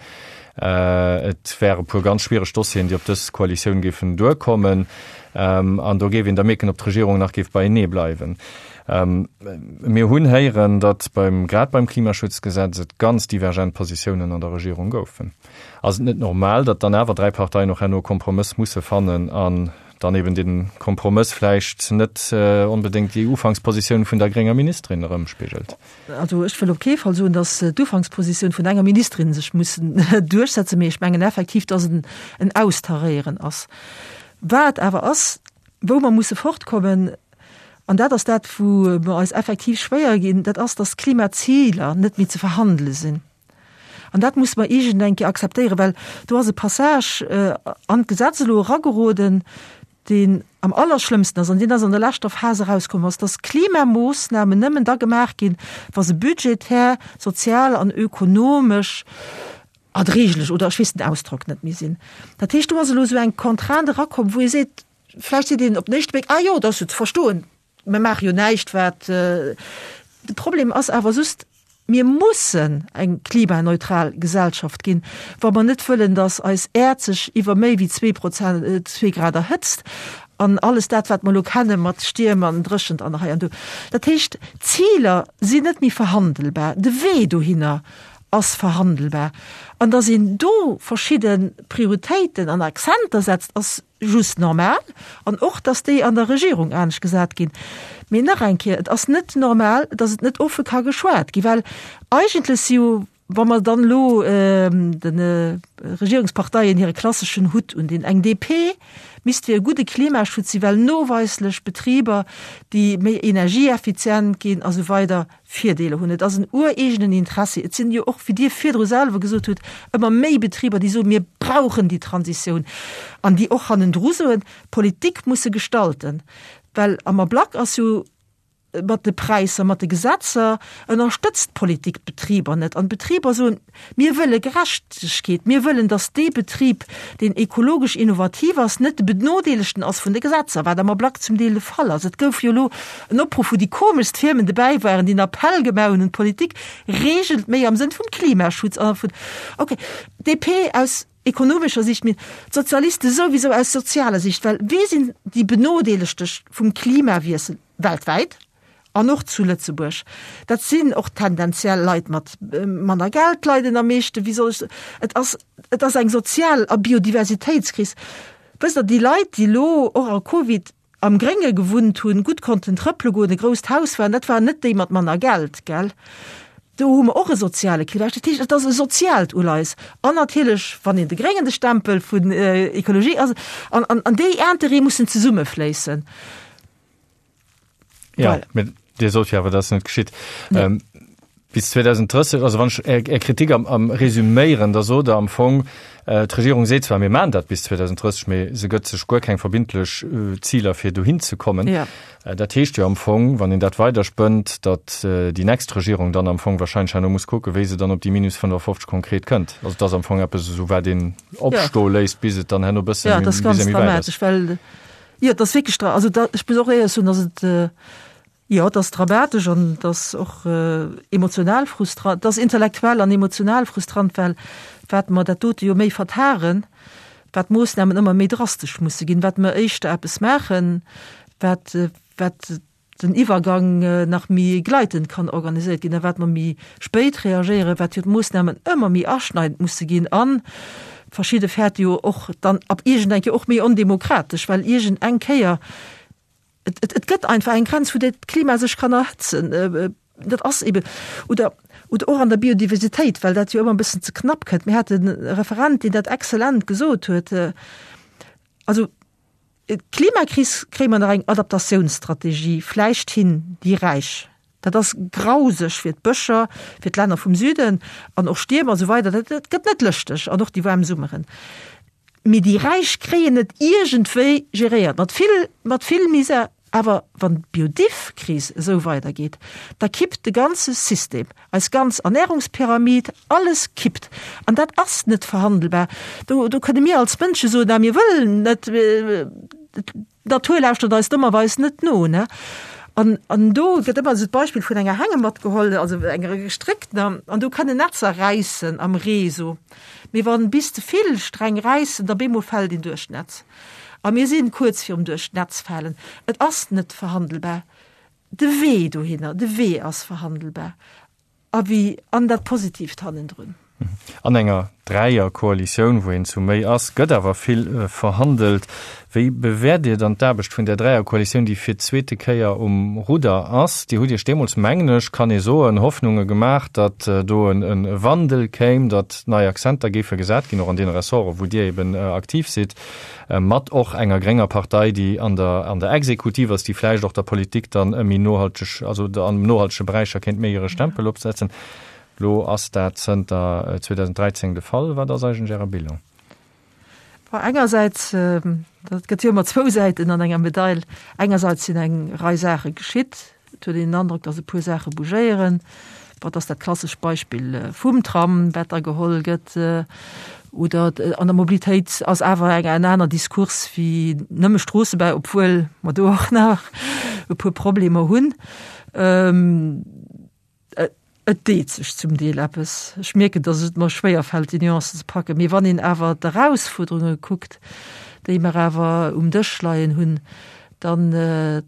Et wäre puer ganz schwiereg Dossieren, déi op dës Koalitioun géifen duerkommen. An do géif een da mierken, ob d'Regierung nach géif beienee bleiwen. Mir hunn héieren, datt beim, grad beim Klimaschutzgesetz et ganz divergent Positiounen an der Regierung goufen. Ass et net normal, datt dann awer 3 Parteien och herno e Kompromëss musse fannen an dann eben dee Kompromëss vläicht net onbedéngt déi Ufankspositioun vun der grénger Ministerin erëmspigelt?
Also ech wëll op kee Fall soen, datt d'Ufankspositioun vun enger Ministerin sech muss duerchsetzen, mee ech mengen effektiv, datt et en Austaréieren ass. Wat awer ass, wou mer musse fortkommen, an dat ass dat, wou mer eis effektiv schwéier ginn, dat ass, datt d'Klimaziler net méi ze verhandele sinn. An dat musse mer iergend eng Kéier akzeptéieren, well do ass e Passage an d'Gesetz elo erageroden, deen am allerschlëmmsten ass, an deen ass an der leschter Phas erauskomm ass, dass Klimamoossnamen nëmmen da gemaach ginn, wa se budgetär, sozial an ökonomesch erdréiglech, oder ech weess den Ausdrock net méi, sinn. Dat heescht, do ass elo esou eng Contrainte erakomm, wou ee seet, vläicht seet een op den éischte Bléck, Ah jo, dat ass jo ze verstoen, Mir maache jo näischt, wat. De Problem ass awer just, Mir mussen eng klimaneutral Gesellschaft ginn, wa mer net wëllen, datt eis Äerd sech iwwer méi wéi zwee Grad erhëtzt an alles dat, wat mer elo kenne mat Stierm an Dréchent an hei an do. Dat heescht, d'Ziler sinn net méi verhandelbar, de Wee dohinner ass verhandelbar. An datt een do verschidde Prioritéiten an Accenter setzt, ass just normal an och, dass déi an der Regierung anescht gesat ginn. Mee nach eng Kéier, et ass net normal, dass et net offe ka geschwat ginn, well eigentlech si jo, wa mer dann elo de Regierungsparteien hire klasseschen Hutt undinn, eng DP misst fir e gudde Klimaschutz si well noweislech Betriber, déi méi energieeffizient ginn a sou weider, Virdeeler hunn. Et ass en ureegenen Interessi. Et sinn jo och, wéi Dir virdru selwer gesot hutt, ëmmer méi Betriber, déi soen, mir brauchen déi Transitioun an déi och hannendru soen, d'Politik muss se gestalten. Well am Ablack ass jo mat de Präisser, mat de Gesetzer ënnerstëtzt d'Politik d'Betriber net. An d'Betriber soen, Mir wëlle Gerechtegkeet. Mir wëllen, datt dee Betrib, deen ekologesch innovativ ass, net de Benodeelegten ass vun de Gesetzer, wat am Ablack zum Deel de Fall ass. Et gouf jo elo en Opruff, wou déi komeschst Firmen dobäi waren, déi en Appell gemaach hunn un d'Politik, Reegelt méi am Sënn vum Klimaschutz a vun, okay, DP aus ekonomescher Sicht, mee d'Sozialiste souwisou aus sozialer Sicht, well wie sinn déi Benodeelegte vum Klimawiessel weltwäit? An och zu Lëtzebuerg. Dat sinn och tendenziell Leit mat manner Geld leiden am meeschten. Wéi soll ech soen? Et ass, et ass eng Sozial a Biodiversitéitskris. Wësst Der, déi Leit, déi elo och a Covid am Grénge gewunnt hunn, gutt konnten trëppele goen, e grousst Haus waren, dat waren net déi mat manner Geld, gell? Do hu mer och e soziale Clivage. Dat heescht, et ass e soziaalt Uleies. An natierlech, wann een de Gréngen de Stempel vun Ekologie ass, an, an, an déi Intérêtë mussen zesummefléissen.
Ja, voilà. Dir sot jo awer, dat ass net geschitt. Nee. Ähm, bis 2030, also wann ech Är, Är Kritik am, am resüméieren, da sot Der am Fong, äh, d'Regierung seet zwar, mir maachen dat bis 2030, mee se gëtt sech guer keng verbindlech äh, Ziler, fir dohin ze kommen.
Ja.
Äh, dat heescht jo am Fong, wann een dat weiderspënnt, datt äh, déi nächst Regierung dann am Fong wahrscheinlech herno muss kucken, wéi se dann op déi minus 55 konkret kënnt. Also et ass am Fong eppes esou, wat een opstoe ja. léisst, bis et dann herno bëssen
ja, das ganz dramatisch, well Jo, et ass wierklech dra-, also da, ech muss och éierlech soen, dass et, jo, et ass dramatesch an et ass och emotional frustrant, et ass intellektuell an emotional frustrant, well wat mer dat dote jo méi vertagen, wat d'Moossnamen ëmmer méi drastesch musse ginn, wat mer éischter eppes maachen, wat, wat den Iwwergang nach méi gleitend kann organiséiert ginn a wat mer méi spéit reagéieren, wat jo d'Moossnamen ëmmer méi aschneidend musse ginn a verschidde fäerte jo och dann ab iergend eng Kéier och méi ondemokratesch, well iergend eng Kéier, et, et, et gëtt einfach eng Grenz, wou dat Klima sech kann erhëtzen. Dat ass eben, oder, oder och an der Biodiversitéit, well dat jo ëmmer e bëssen ze knapp kënnt. Mir haten e Referent, deen dat exzellent gesot huet, also, D'Klimakris kréie mer nach eng Adaptatiounsstrategie vläicht hin, déi Räich. Dat ass grauseg fir d'Bëscher, fir d'Länner vum Süden an och Stierm a sou weider. Dat gëtt net lëschteg an och déi waarm Summeren. Mee déi Räich kréien et iergendwéi geréiert, mat vill, mat vill Misär. Awer wann d'Biodiv-Kris esou weidergeet, da kippt de ganze System. Eis ganz Ernährungspyramid, alles kippt. An dat ass net verhandelbar. Do, do kënne mir als Mënsche soen, na mir wëllen net, d'Natur lauschtert eis dommerweis net no, ne? An, an do gëtt ëmmer esou d'Beispill vun enger Hängematt geholl, also enger gestréckter, an do kënnen Netzer räissen am Ree esou. Mee wann bis ze vill Sträng räissen, da bemol fält een duerch d'Netz. A mir sinn kuerz virum duerch d'Netz falen. Et ass net verhandelbar. De Wee dohinner, de Wee ass verhandelbar a wéi an dat Positiivt hannendrun.
An enger Dräierkoalitioun, wou een zu méi ass, gëtt awer vill verhandelt. Wéi bewäert Dir dann d'Aarbecht vun där Dräierkoalitioun, déi fir d'zweete Kéier um Rudder ass? Dir hutt Iech deemools, mengen ech, kann ee soen, Hoffnunge gemaach, datt do e Wandel kéim, datt nei Akzenter géife gesat ginn, och an deene Ressorten, wou Dir eben aktiv sidd. Mat och enger grénger Partei, déi an der, an der Exekutiv ass, déi vläicht och der Politik dann e méi nohalteg, also an nohaltege Beräicher kéint méi hire Stempel opsetzen. Elo ass dat zënter 2013 de Fall. Wat ass eigentlech Äre Bilan?
Bon, engersäits, dat gëtt jo ëmmer zwou Säiten an enger Medail, engersäits sinn eng Rei Saache geschitt, Et huet een den Androck, datt e puer Saache bougéieren. Bon, et ass dat klassescht Beispill vum Tram, wat da geholl gëtt. Oder an der Mobilitéit ass awer eng en aner Diskurs wéi nëmme Stroossebau, obwuel mer do och nach e puer Problemer hunn. Et deet sech zum Deel eppes. Ech mierken, datt et mer schwéier fält, déi Nuancen ze packen. Mee wann een awer d'Erausfuerderunge kuckt, déi mer awer um Dësch leien hunn, dann,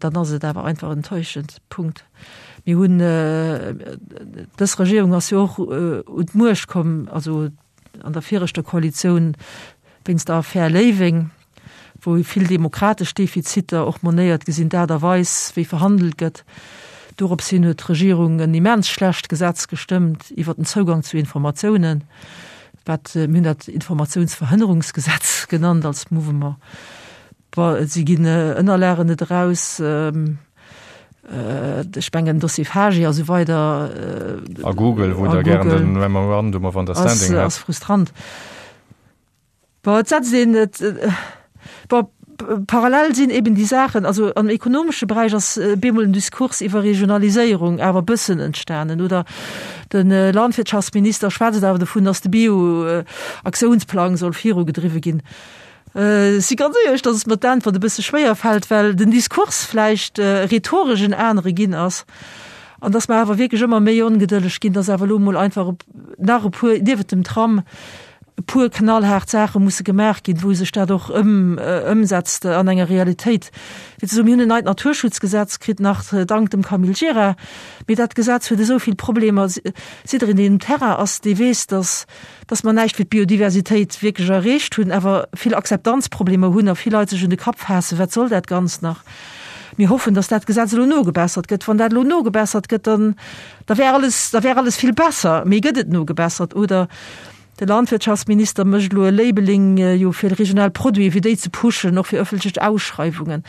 dann ass et awer einfach enttäuschend. Punkt. Mir hunn, dës Regierung ass jo och un d'Muecht komm, also an der viregter Koalitioun wéinst der Affär Léiweng, wou vill demokratesch Defiziter och monéiert gi sinn, d'Aart a Weis, wéi verhandelt gëtt. Dorops hin huet d'Regierung en immens schlecht Gesetz gestëmmt iwwert den Zougang zu Informatiounen, wat, mir hunn dat Informatiounsverhënnerungsgesetz genannt als Mouvement. Bon, si ginn Ënnerlagen net eraus, ech mengen Dossier Fagi a sou weider.
A Google, wou Der gären de Memorandum of Understanding
hätt. Ass frustrant. Bon, et setzt een et, bon, parallel sinn eben déi Saachen, also am ekonomesche Beräich ass bemol en Diskurs iwwer Regionaliséierung awer e bëssen entstanen, oder de Landwirtschaftsminister schwätzt awer dovun, datt de Bio-Aktiounsplang soll virugedriwwe ginn. Ech si ganz éierlech, datt et mer d'Äntwert e bësse schwéier fält, well den Diskurs vläicht rhetoresch en anere ginn ass an datt mer awer wierklech ëmmer méi ongedëlleg ginn, datt awer elo emol einfach nach e puer, niewent dem Tram, e puer knallhaart Saache musse gemaach ginn, wou sech dat och ëmsetzt an enger Realitéit. Fir ze soen, mir hunn en neit Naturschutzgesetz kritt, nach dank dem Camille Gira, mee dat Gesetz huet esou vill Problemer. Jiddereen, deen um Terrain ass, dee weess, datt, datt mer näischt fir d'Biodiversitéit wierklech erreecht hunn, awer vill Akzeptanzproblemer hunn a vill Leit sech un de Kapp faassen, Wat soll dat Ganzt nach? Mir hoffen, datt dat Gesetz elo nogebessert gëtt. Wann dat elo nogebessert gëtt, dann, da wär alles, da wär alles vill besser. Mee gëtt et nogebessert oder De Landwirtschaftsminister mécht elo e Labeling jo fir regional Produiten, fir déi ze pushen, och fir ëffentlech Ausschreiwungen.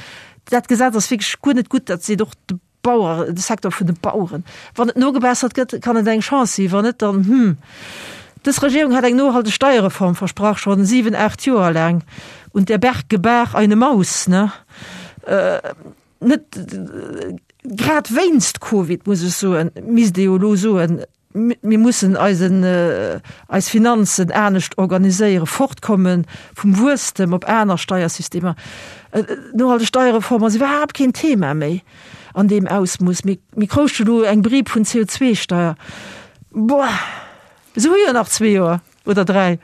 Dat Gesetz ass wierklech guer net gutt, dat seet och de. Bauer, de Secteur vun de Baueren. Wann et nogebessert gëtt, kann et eng Chance sinn, wann net, dann, hm. Dës Regierung hat eng nohalteg Steierreform versprach, schonn 7, 8 Joer laang. Und der Berg gebar eine Maus, ne? Net grad wéinst Covid, muss ech soen, misst ee jo elo soen, Mir mussen eisen, eis Finanzen anescht organiséieren, fortkomme vum Wuesstem op aner Steiersystemer. Nohalteg Steierreform ass iwwerhaapt keen Thema méi an deem Ausmooss. Mir, mir krouschte elo eng Brieb vun CO2-Steier. Boah, se hu jo nach zwee Joer oder dräi.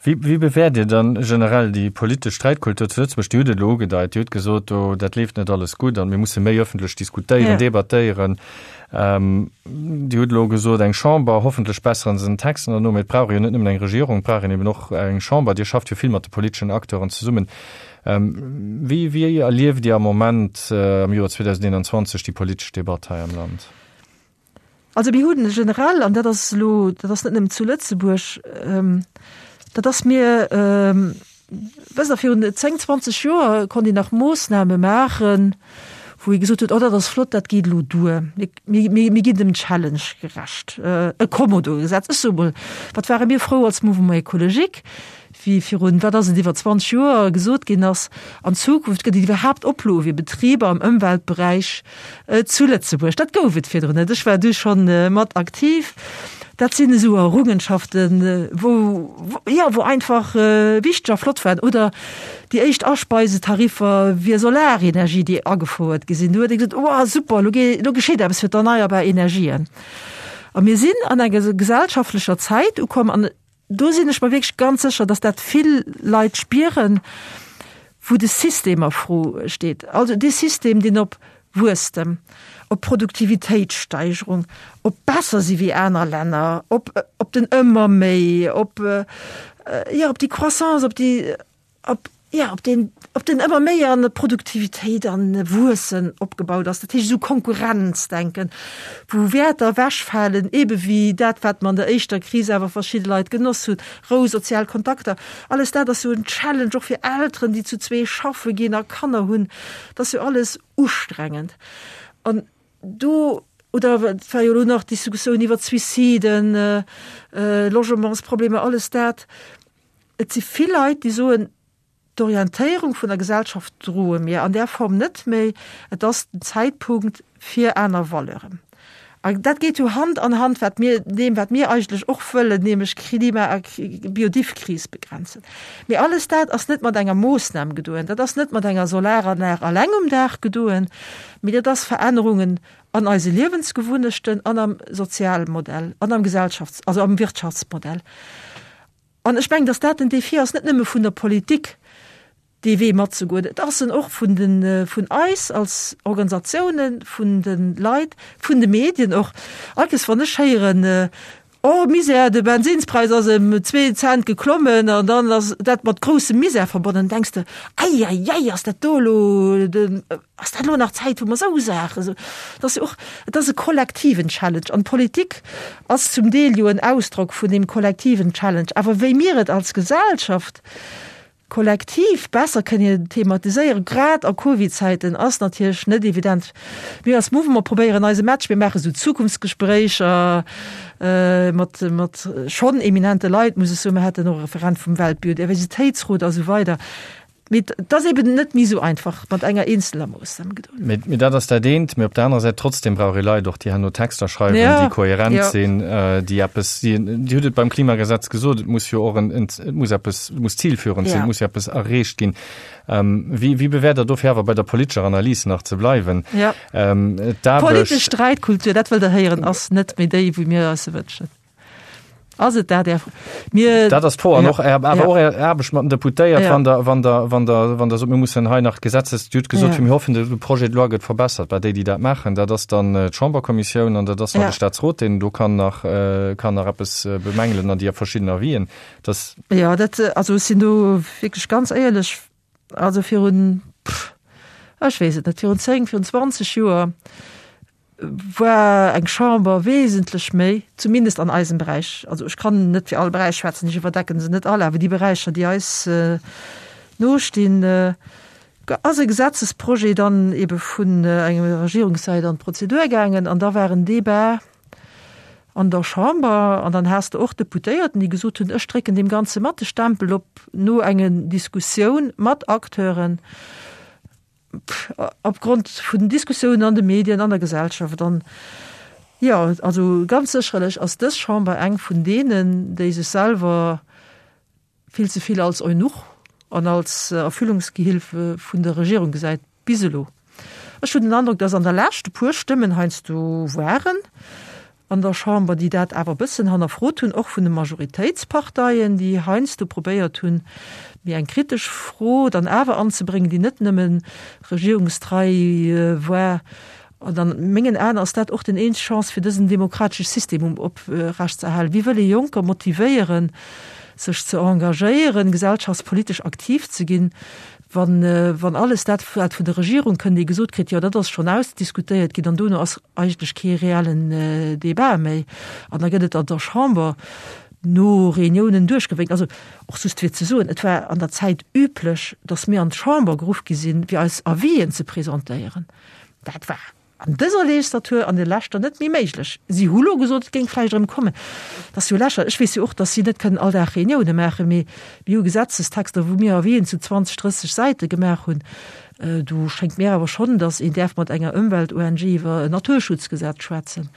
Wéi, wéi bewäert Dir dann generell déi politesch Sträitkultur zu Lëtzebuerg? Dir hutt et elo ugedeit, Dir hutt gesot, do, dat leeft net alles gutt an mir musse méi ëffentlech diskutéieren, ja. debattéieren. Ähm, Dir hutt elo gesot, eng Chamber, hoffentlech besseren se den Texten herno, mee et brauch ee jo net nëmmen eng Regierung, et brauch een eben och eng Chamber. Dir schafft jo vill mat de politeschen Acteuren zesummen. Ähm, wéi, wéi erlieft Dir am Moment, äh, am Joer 2021, déi politesch Debatt hei am Land?
Also mir hunn generell, an dat ass elo, dat ass net nëmmen zu Lëtzebuerg, dat ass mir, wësst Der, virun 10, 20 Joer konnt een nach Moossname maachen, wou ee gesot huet, oh dat ass flott, dat geet elo duer, mir, mir, mir ginn dem Challenge gerecht. E Kommodo-Gesetz, ech soe mol, wat ware mir frou als Mouvement écologique, wéi virun, wat ass et, iwwer 20 Joer gesot ginn ass, an Zukunft gëtt et iwwerhaapt Oploe fir Betriber am Ëmweltberäich zu Lëtzebuerg. Dat gouf et virdrun net. Ech war du schonn mat aktiv. Dat sinn esou Errungenschaften, wou, jo, wou einfach wichteg a flott waren. Oder déi éischt Aspeisetariffer fir Solarenergie, déi agefouert gi sinn. Do huet ee gesot, Wow, super, elo elo geschitt eppes fir d'erneierbar Energien. A mir sinn an enger gesellschaftlecher Zäit ukomm, an Do sinn ech mer wierklech ganz sécher, dass dat vill Leit spieren, wou de System a Fro steet. Also dee System, deen op Wuesstem, op Produktivitéitssteigerung, op besser si wéi aner Länner, op, op den ëmmer méi, op, jo, op déi Croissance, op déi, op, jo, op deen, op den ëmmer méi an Produktivitéit an Wuessen opgebaut ass, dat heescht esou Konkurrenzdenken, wou Wäerter ewechfalen, ebe wéi dat, wat mer an der éischter Kris awer verschidde Leit genoss hunn, Rou, sozial Kontakter, alles dat ass jo en Challenge och fir Elteren, déi zu zwee schaffe ginn a Kanner hunn, dat ass jo alles ustrengend. An do, oder et war jo elo nach d'Diskussioun iwwer d'Suiciden, Logementsproblemer, alles dat. Et si vill Leit, déi soen, d'Orientéierung vun der Gesellschaft droe mir an där Form net méi, et ass den Zäitpunkt fir aner Valeuren. An dat geet jo Hand an Hand wat mir, deem wat mir eigentlech och wëllen, nämlech Klima a Biodivkris begrenzen. Mee alles dat ass net mat enger Moossnam gedoen, dat ass net mat enger Solaranlag alleng um Daach gedoen, mee dat ass Verännerungen an eise Liewensgewunnechten an am Sozialmodell an am Gesellschafts-, also am Wirtschaftsmodell. An ech mengen, datt dat den Défi ass, net nëmme vun der Politik, dee Wee matzegoen, et ass en och vun den, vun eis als Organisatiounen, vun de Leit, vun de Medien och. All Kees, wann ech héieren, Oh Misär, de Bensinnspräis ass ëm zwee Cent geklommen an dann ass dat mat groussem Misär verbonnen, denks de, Ei, ei, ei, ass dat do elo den, Ass dat elo nach d'Zäit, wou mer esou Saache soen? Et ass jo och, et ass e kollektiven Challenge an d'Politik ass zum Deel jo en Ausdrock vun deem kollektiven Challenge. Awer wéi mir et als Gesellschaft kollektiv besser kënnen thematiséieren, grad a Covid-Zäiten, ass natierlech net evident. Mir als Mouvement probéieren eise Match, mir maache sou Zukunftsgespréicher mat, mat schonn eminente Leit, muss ech soen. Mir haten och e Referent vum Weltbiodiversitéitsrot a sou weider. Mee et ass eben net méi esou einfach mat enger eenzeler Moossnam
gedoen. Mee dat ass dat eent. Mee op der anerer Säit trotzdem brauch ee Leit och, déi herno Texter schreiwen, ja, déi kohärent ja. sinn, äh, déi eppes, déi, Dir hutt et beim Klimagesetz gesot, et muss jo och en, en, et muss eppes, et muss zielführend sinn, ja. et muss jo eppes erreecht ginn. Ähm, wéi, wéi bewäert Der dofir awer bei der politescher Analys nach ze bleiwen?
Ja. Ähm, Politesch Streitkultur, dat wëllt Der héieren, ass net méi déi, wou mir eis se wënschen. Ass et dat, Är Fro?
Mir. Dat ass d'Fro. An och Är, awer och Är Aarbecht mat den Deputéiert, wann Der, wann Der, wann Der, wann Der sot, mir mussen hei nach Gesetzes, Dir hutt gesot, mir hoffen, de Projet de loi gëtt verbessert. Bah, déi, déi dat maachen, dat ass dann d'Chamberkommissioun an dat ass nach de Staatsrot, deen do kann nach, kann nach eppes bemängelen an déi verschidden Avisen.
Dass. Jo, dat, also ech sinn do wierklech ganz éierlech, also virun, ech weess et net, virun 10, virun 20 Joer, war eng Chamber wesentlech méi, zumindest an eisem Beräich, also ech kann net fir all Beräich schwätzen, ech iwwerdecken se net all, awer déi Beräicher, déi eis nostinn, Ass e Gesetzesprojet dann ebe vun enger Regierungssäit an d'Prozedur gaangen an da war en Débat an der Chamber an dann has de och Deputéierten, déi gesot hunn, ech drécken deem Ganze mat de Stempel op no enge Diskussioun mat Acteuren, opgrond vun den Diskussiounen an de Medien, an der Gesellschaft. An jo, also ganz sécherlech ass dës Chamber eng vun deenen, déi sech selwer vill ze vill als Eunuch an als Erfüllungsgehilfe vun der Regierung gesäit, bis elo. Ech hunn den Androck, dass an der Lescht e puer Stëmmen heiansdo waren an der Chamber, déi dat awer e bëssen hannerfrot hunn, och vun de Majoritéitsparteien, déi heiansdo probéiert hunn, méi eng kritesch Fro dann awer anzebréngen, déi net nëmme regierungstrei war. An an mengen Aen ass dat och den eenzeg Chance fir dësen demokratesche System um oprecht ze erhalen. Wie wëll ee Jonker motivéieren, sech ze engagéieren, gesellschaftspolitesch aktiv ze ginn, wann wann alles dat wat vun der Regierung kënnt, ee gesot kritt, jo dat ass schonn ausdiskutéiert ginn an dono ass eigentlech kee reellen Débat méi an da gëtt et an der Chamber no Reuniounen duerchgewénkt. Also och just fir ze soen, et war an der Zäit üblech, datt mir an d'Chamber geruff gi sinn, fir eis Avisen ze presentéieren. Dat war an dëser Legislatur, an der leschter net méi méiglech. Si hu lo gesot, et géing vläicht erëm kommen. Dat ass jo lächerlech. Ech weess jo och, datt si net kënnen all Dag Reunioune maachen, mee mir hu Gesetzestexter, wou mir Avisen zu 20, 30 Säite gemaach hunn. Do schéngt mir awer schonn, datt een däerf mat enger Ëmwelt-ONG iwwer en Naturschutzgesetz schwätzen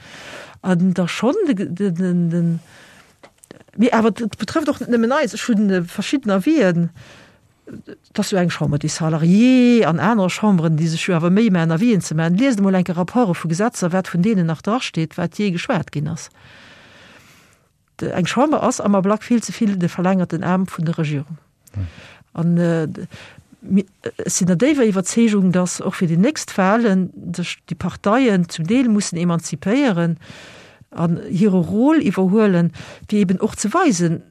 an da schonn de, mee awer et betrëfft och net nëmmen eis. Ech hu verschidden Avisen. Et ass jo eng Chambre des Salariés an aner Chamberen, déi sech jo awer Méi maachen, Avisen ze maachen. Liest emol enke Rapporte vu Gesetzer, wat vun deenen nach drasteet, wat jee geschwat ginn ass. Eng Chamber ass am Ablack vill ze vill de verlängerten Aarm vun der Regierung. An ech sinn der déiwer Iwwerzeegung, datt och fir déi nächst Wahlen sech déi Parteien zum Deel mussen emanzipéieren an hire Rôle iwwerhuelen, fir eben och ze weisen,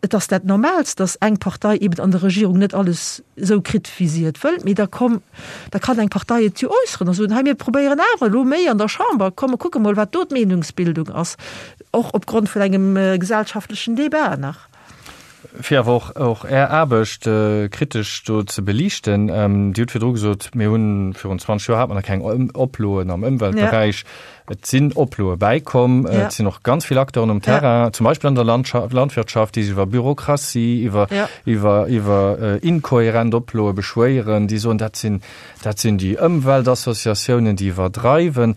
Et ass dat Normaalst, datt eng Partei eben an der Regierung net alles esou kritt, wéi si et wëllt. Mee da komm, da kann eng Partei et jo äusseren a soen, hei mir probéieren awer elo méi an der Chamber, komm mer kucke mol, wat do d'Meenungsbildung ass, och opgrond vun engem gesellschaftlechen Débat nach.
Fir awer och och Är Aarbecht kritesch do ze beliichten, Dir hutt virdru gesot, mir hunn virun 20 Joer hat mer nach keng Oploen am Ëmweltberäich. Et sinn Oploe bäikomm, et sinn och ganz vill Acteuren um Terrain, zum Beispill an der Landwirtschaft, déi sech iwwer Bürokratie, iwwer, iwwer, iwwer inkohärent Oploe beschwéieren, déi soen, dat sinn, dat sinn déi Ëmweltassociatiounen, déi iwwerdreiwen.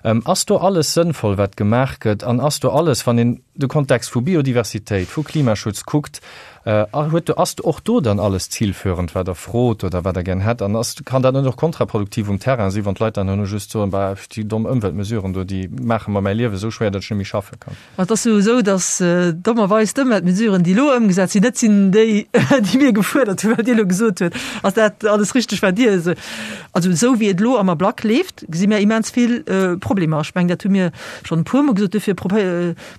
Ass do alles sënnvoll, wat gemaach gëtt? An ass do alles, wann een de Kontext vu Biodiversitéit, vu Klimaschutz kuckt, Huet do, ass och do dann alles zielführend, wat Der frot oder wat Der gär hätt? An ass, kann dat net och kontraproduktiv um Terrain sinn, wann d'Leit dann herno just soen, Bah, déi domm Ëmweltmesuren do, déi maache mer mäi Liewe esou schwéier, datt ech net méi schaffe kann?
Ma et ass jo esou, datt dommerweis d'Ëmweltmesuren, déi elo ëmgesat sinn, net sinn déi, déi mir gefuerdert hunn, wat Dir elo gesot hutt. Ass dat alles richteg, wat Dir esou. Also esou wéi et elo am Ablack leeft, gesi mir immens vill Problemer. Ech mengen, dat hu mir schonn e puermol gesot. Dofir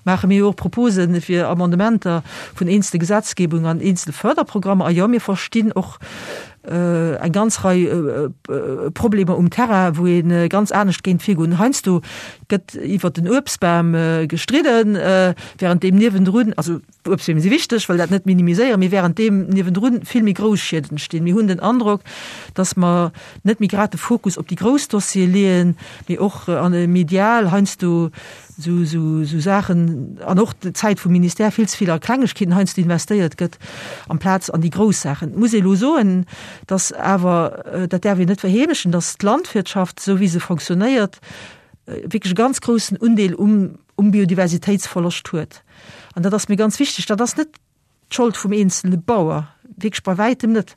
maache mir jo och Propose fir Amendementer vun eenzele Gesetzgebungen an eenzele Förderprogrammer. A jo, mir verstinn och eng ganz Rei Problemer um Terrain, wou ee ganz anescht géint virgoen. Heiansdo gëtt iwwer den Uebstbam gestridden, während deem niewendrun, also d'Uebstbeem si wichteg, wëll dat net minimiséieren, mee während deem niewendrun vill méi grouss Schied entstinn. Mir hunn den Androck, dass mer net méi grad de Fokus op déi grouss Dossiere leeën, mee och medial heiansdo esou, esou, esou Saachen an och d'Zäit vum Ministère vill ze vill a Klengegkeeten heiansdo investéiert gëtt, amplaz an déi grouss Saachen. Et muss ee elo soen, dass awer, dat däerf een net verheemlechen, dass d'Landwirtschaft, esou wéi se fonctionnéiert, wierklech e ganz groussen Undeel um, um Biodiversitéitsverloscht huet. An dat ass mir ganz wichteg. Dat ass net d'Schold vum eenzele Bauer, wierklech bei wäitem net.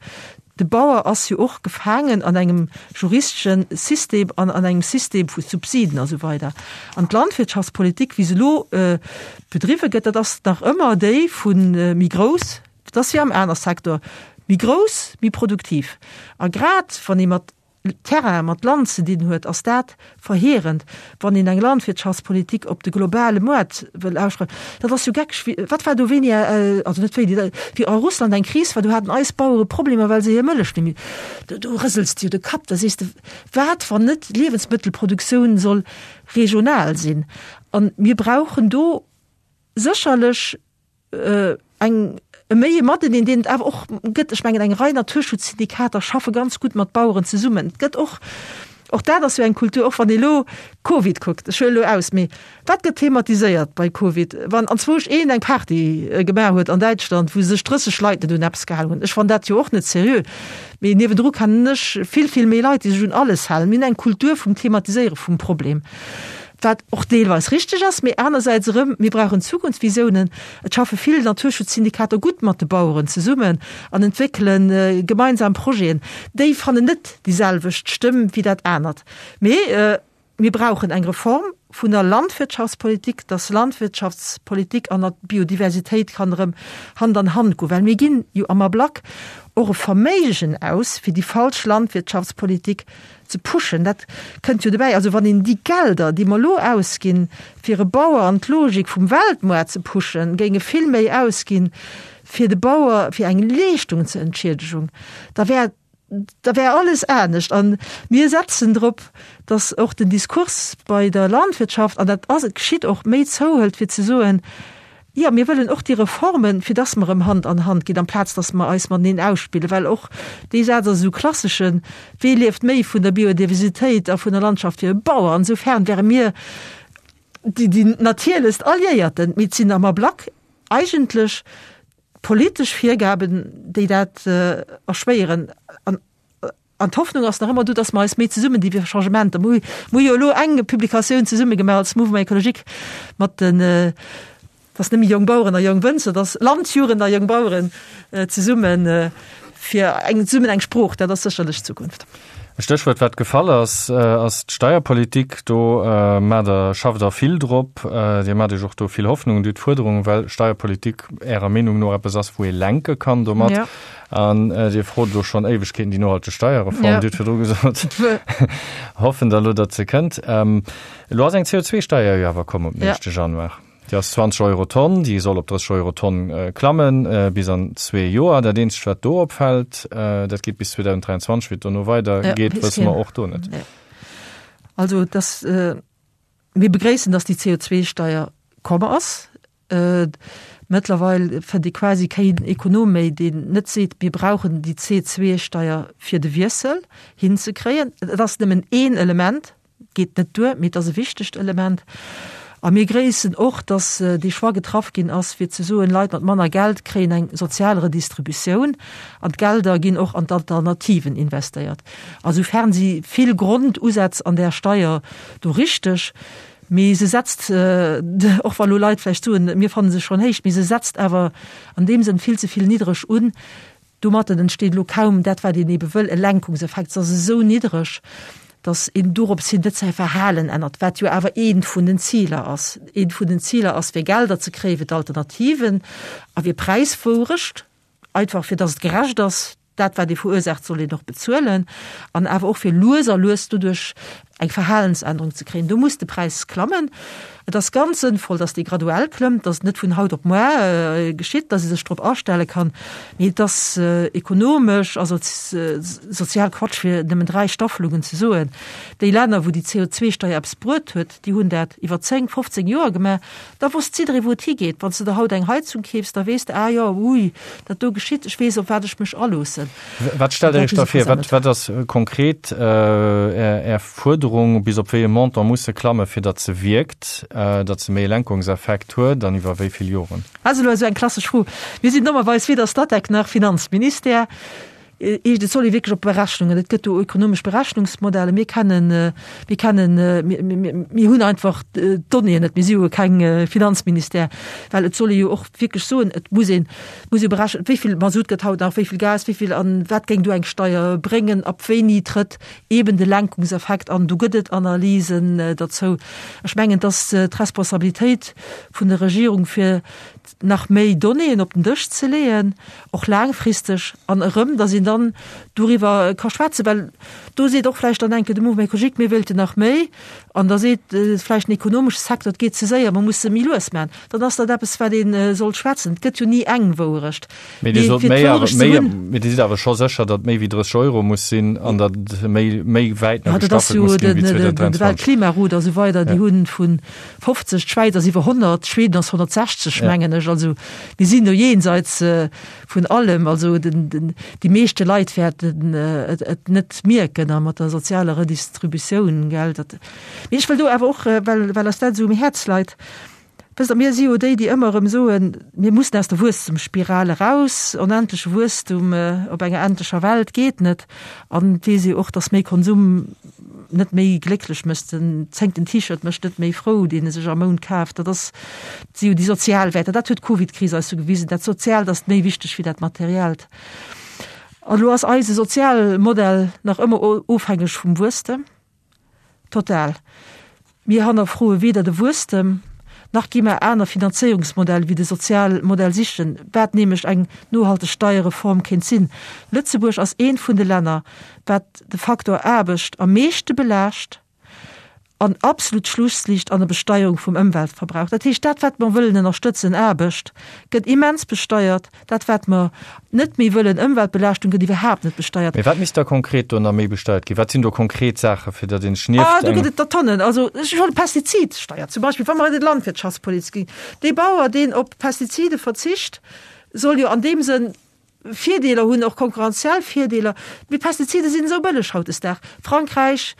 De Bauer ass jo och gefaangen an engem juristesche System an an engem System vu Subsiden a sou weider. An d'Landwirtschaftspolitik, wéi se elo bedriwwe gëtt, dat ass nach ëmmer déi vu méi grouss, dat ass wéi am aner Secteur, méi grouss, méi produktiv. A grad wann ee mat Terrain mat Land ze dinn huet, ass dat verheerend, wann een eng Landwirtschaftspolitik op de globale Moart wëll ausschreiwen. Dat ass jo geckeg. Wéi, wat war do wéini, also net wéini, wéi a Russland eng Kris war, do haten eis Bauere Problemer, well se hir Mëllech net méi, do, do rësels de jo de Kapp, da sees de, wat, wann net d'Liewensmëttelproduktioun soll regional sinn? An mir brauchen do sécherlech eng. E méi e Mateneen, deen et awer och gëtt. Ech mengen, eng Rei Naturschutzsyndikater schaffe ganz gutt mat Baueren zesummen. Et gëtt och, och dat ass jo eng Kultur, och wann ee elo Covid kuckt, ech huelen elo aus, mee wat gëtt thematiséiert bei Covid, wann anzwousch een eng Party gemaach huet an Däitschland, wou sech 30 Leit net un eppes gehalen hunn? Ech fannen dat jo och net seriö. Mee niewendru kennen ech vill, vill méi Leit, déi sech un alles halen. Mir hunn eng Kultur vum Thematiséiere vum Problem. Wat och deelweis richteg ass, mee anersäits erëm, mir brauchen Zukunftsvisiounen. Et schaffe vill Naturschutzsyndikater gutt mat de Baueren zesummen an entwéckele gemeinsam Projeten. Déi fannen net déi selwecht Stëmm wéi dat anert. Mee mir brauchen eng Reform vun der Landwirtschaftspolitik, dass Landwirtschaftspolitik an Biodiversitéit kann erëm Hand an Hand goen, well mir ginn jo am Ablack och e Verméigen aus fir déi falsch Landwirtschaftspolitik ze pushen, dat kënnt jo dobäi. Also wann een déi Gelder, déi mer elo ausginn, fir e Bauer an d'Logik vum Weltmoart ze pushen, géinge vill méi ausginn, fir de Bauer fir eng Leeschtung ze Entschiedegung, da wär, da wär alles anescht. A mir setzen drop, datt och den Diskurs bei der Landwirtschaft, an dat ass, et geschitt och, méi zouhëlt, fir ze soen, Jo, mir wëllen och déi Reformen, fir dass mer erëm Hand an Hand ginn, amplaz dass mer eis mateneen ausspillen, well och dee Saz ass esou klasseschen, Wee lieft méi vun der Biodiversitéit a vun der Landschaft wéi e Bauer? Insofern wäre mir déi, déi natierlechst Alliéierten. Mee et sinn am Ablack eigentlech d'politesch Virgaben, déi dat erschwéieren. An An d'Hoffnung ass nach ëmmer do, dass mer eis méi zesummen di fir Changementer. Mir hu jo elo eng Publikatioun zesumme gemaach als Mouvement écologique mat den, dass net méi Jong Baueren a Jong Wënzer, dass Landjugend a Jong Baueren zesummen fir eng zesummen eng Sprooch, dat ass sécherlech d'Zukunft.
E Stéchwuert, wat gefall ass, ass d'Steierpolitik. Do maacht Der, schafft Der vill drop. Dir maacht Iech och do vill Hoffnungen. Dir hutt Fuerderungen, well Steierpolitik Ärer Meenung no eppes ass, wou ee lenke kann domat. An Dir frot elo schonn Éiwegkeeten déi nohalteg Steierreform. Ja. Dir hutt virdru gesot, hoffen der elo, datt se kënnt. Elo ass eng CO2-Steier jo awer komm op den éischte Januar. Déi ass 20 Euro Tonn, déi soll op 30 Euro Tonn klammen bis an zwee Joer. Dat eenzegt, wat do opfält, dat geet bis 2023, wéi et dono weidergeet, wësse mer och do net.
Also, dass, mir begréissen, dass déi CO2-Steier komm ass. Mëttlerweil fënnt ee quasi keen Ekonom méi, deen net seet, mir brauchen déi CO2-Steier fir de Wiessel hinzekréien. Et ass nëmmen een Element, geet net duer, mee et ass e wichtegt Element. A mir gréissen och, datt dee Choix getraff ginn ass, fir ze soen, Leit mat manner Geld kréien eng sozial Redistributioun an d'Gelder ginn och an d'Alternativen investéiert. A soufern si vill Grondusätz an där Steier do richteg. Mee se setzt, och wa lo Leit vläicht soen, mir fanne se schonn héich, mee se setzt awer an deem Sënn vill ze vill niddreg un. Domatten entsteet elo kaum dat, wat een ebe wëll, e Lenkungseffekt. Se ass esou niddreg, datt een dorops hin net säi Verhalen ännert, wat jo awer eent vun den Ziler ass. Eent vun den Ziler ass, fir Gelder ze kréie fir d'Alternativen a fir Präiswourecht, einfach fir datt et gerecht ass. Dat wat ee verursaacht, soll een och bezuelen. An awer och fir lues a lues doduerch eng Verhalensännerung ze kréien. Do muss de Präis klammen. Et ass ganz sënnvoll, datt dee graduell klëmmt, datt et net vun haut op muar geschitt, datt ee sech drop astelle kann. Mee et ass ekonomesch a sozial Quatsch, fir nëmmen 3 Staffelungen ze soen. Déi Länner, wou déi CO2-Steier eppes bruet huet, déi hunn dat iwwer 10, 15 Joer gemaach. Da wosst jidderee wou et higeet. Wann s de der haut eng Heizung keefs, da weess de, ah jo, ui, dat do geschitt, ech weess op wat ech mech aloossen.
Wat stellt Der Iech da vir? Wat, wat ass konkret Är, Är Fuerderung, bis op wéi e Montant muss se klammen, fir datt se wierkt, datt se méi e Lenkungseffekt huet an iwwer wéi vill Joren?
Dat ass elo esou eng klassesch Fro. Mir sinn dommerweis weder Statec nach Finanzministère. Eescht, et soll ee wierklech op Berechnungen, et gëtt do ökonomesch Berechnungsmodelle, mir kennen, mir kennen, mir hunn einfach d'Donnéeën net, mir si jo keng Finanzministère, well et soll ee jo och wierklech soen, et muss een, muss ee berechnen, wéi vill Masutt gëtt haut nach, wéi vill Gas, wéi vill an wat géing do eng Steier bréngen, ab wéini trëtt eeben de Lenkungseffekt an. Do gëtt et Analysen derzou. Ech mengen, et ass d'Responsabilitéit vun der Regierung fir nach méi Donnéeën op den Dësch ze leeën, och laangfristeg, an erëm, dass een. een dann doriwwer ka schwätzen, well do seet och vläicht dann eng Kéier de Mouvement écologique, mir wéilten nach méi, an da seet vläicht den ekonomesche Secteur, et geet ze séier, mer musse méi lues maachen. Dann ass dat eppes, wat ee sollt schwätzen. Et gëtt jo ni eng Wouerecht.
Mee Dir sot méi awer, méi, mee Dir sidd awer scho sécher, datt méi wéi 30 Euro muss sinn an datt méi, méi wäit nach gestaffelt muss ginn wéi 2023.
De Weltklimarot a sou weider, déi hunn vu 50, d'Schwäiz ass iwwer 100, Schweden ass 160, mengen ech. Also mir sinn do jenseits vun allem. Also den, den, déi meeschte Leit wäerten et, et net mierken a mat der sozialer Redistributioun, gell, dat. Mee ech wëll do awer och, well, well eis dat esou um Häerz leit, Wësst Der, mir si jo déi, déi ëmmer erëm soen, mir mussen aus der Wuesstemsspiral eraus, onendleche Wuesstum op enger endlecher Welt geet net. An et weess ee och, datt méi Konsum net méi glécklech mécht. Den zéngten T-Shirt mécht net méi frou, deen e sech am Mount kaaft. Dat ass, dat si jo déi sozial Wäerter. Dat huet d'Covidkris eis jo gewisen, dat Soziaalt ass méi wichteg wéi dat Materiellt. An elo ass eise Sozialmodell nach ëmmer ofhängeg vum Wuesstem. Total. Mir hannerfroe weder de Wuesstem, nach gi mer aner Finanzéierungsmodell wéi de Sozialmodell sichen, wat nämlech eng nohalteg Steierreform kéint sinn. Lëtzebuerg ass eent vun de Länner, wat de Faktor Aarbecht am meeschte belaascht an absolut Schlussliicht an der Besteierung vum Ëmweltverbrauch. Dat heescht, dat wat mer wëllen ënnerstëtzen, Aarbecht, gëtt immens besteiert. Dat wat mer net méi wëllen, Ëmweltbelaaschtung, gëtt iwwerhaapt net besteiert.
Mee wat misst da konkret do nach méi besteiert ginn? Wat sinn do konkret Saachen, fir datt een sech nieft
eng. Ah, do gëtt et der Tonnen. Also ech huelen d'Pestizidsteier zum Beispill, wa mer an d'Landwirtschaftspolitik ginn. Dee Bauer, deen op Pestizide verzicht, soll jo an deem Sënn Virdeeler hunn, och konkurrenziell Virdeeler. Mee Pestizide sinn esou bëlleg hautdesdaags. Frankräich,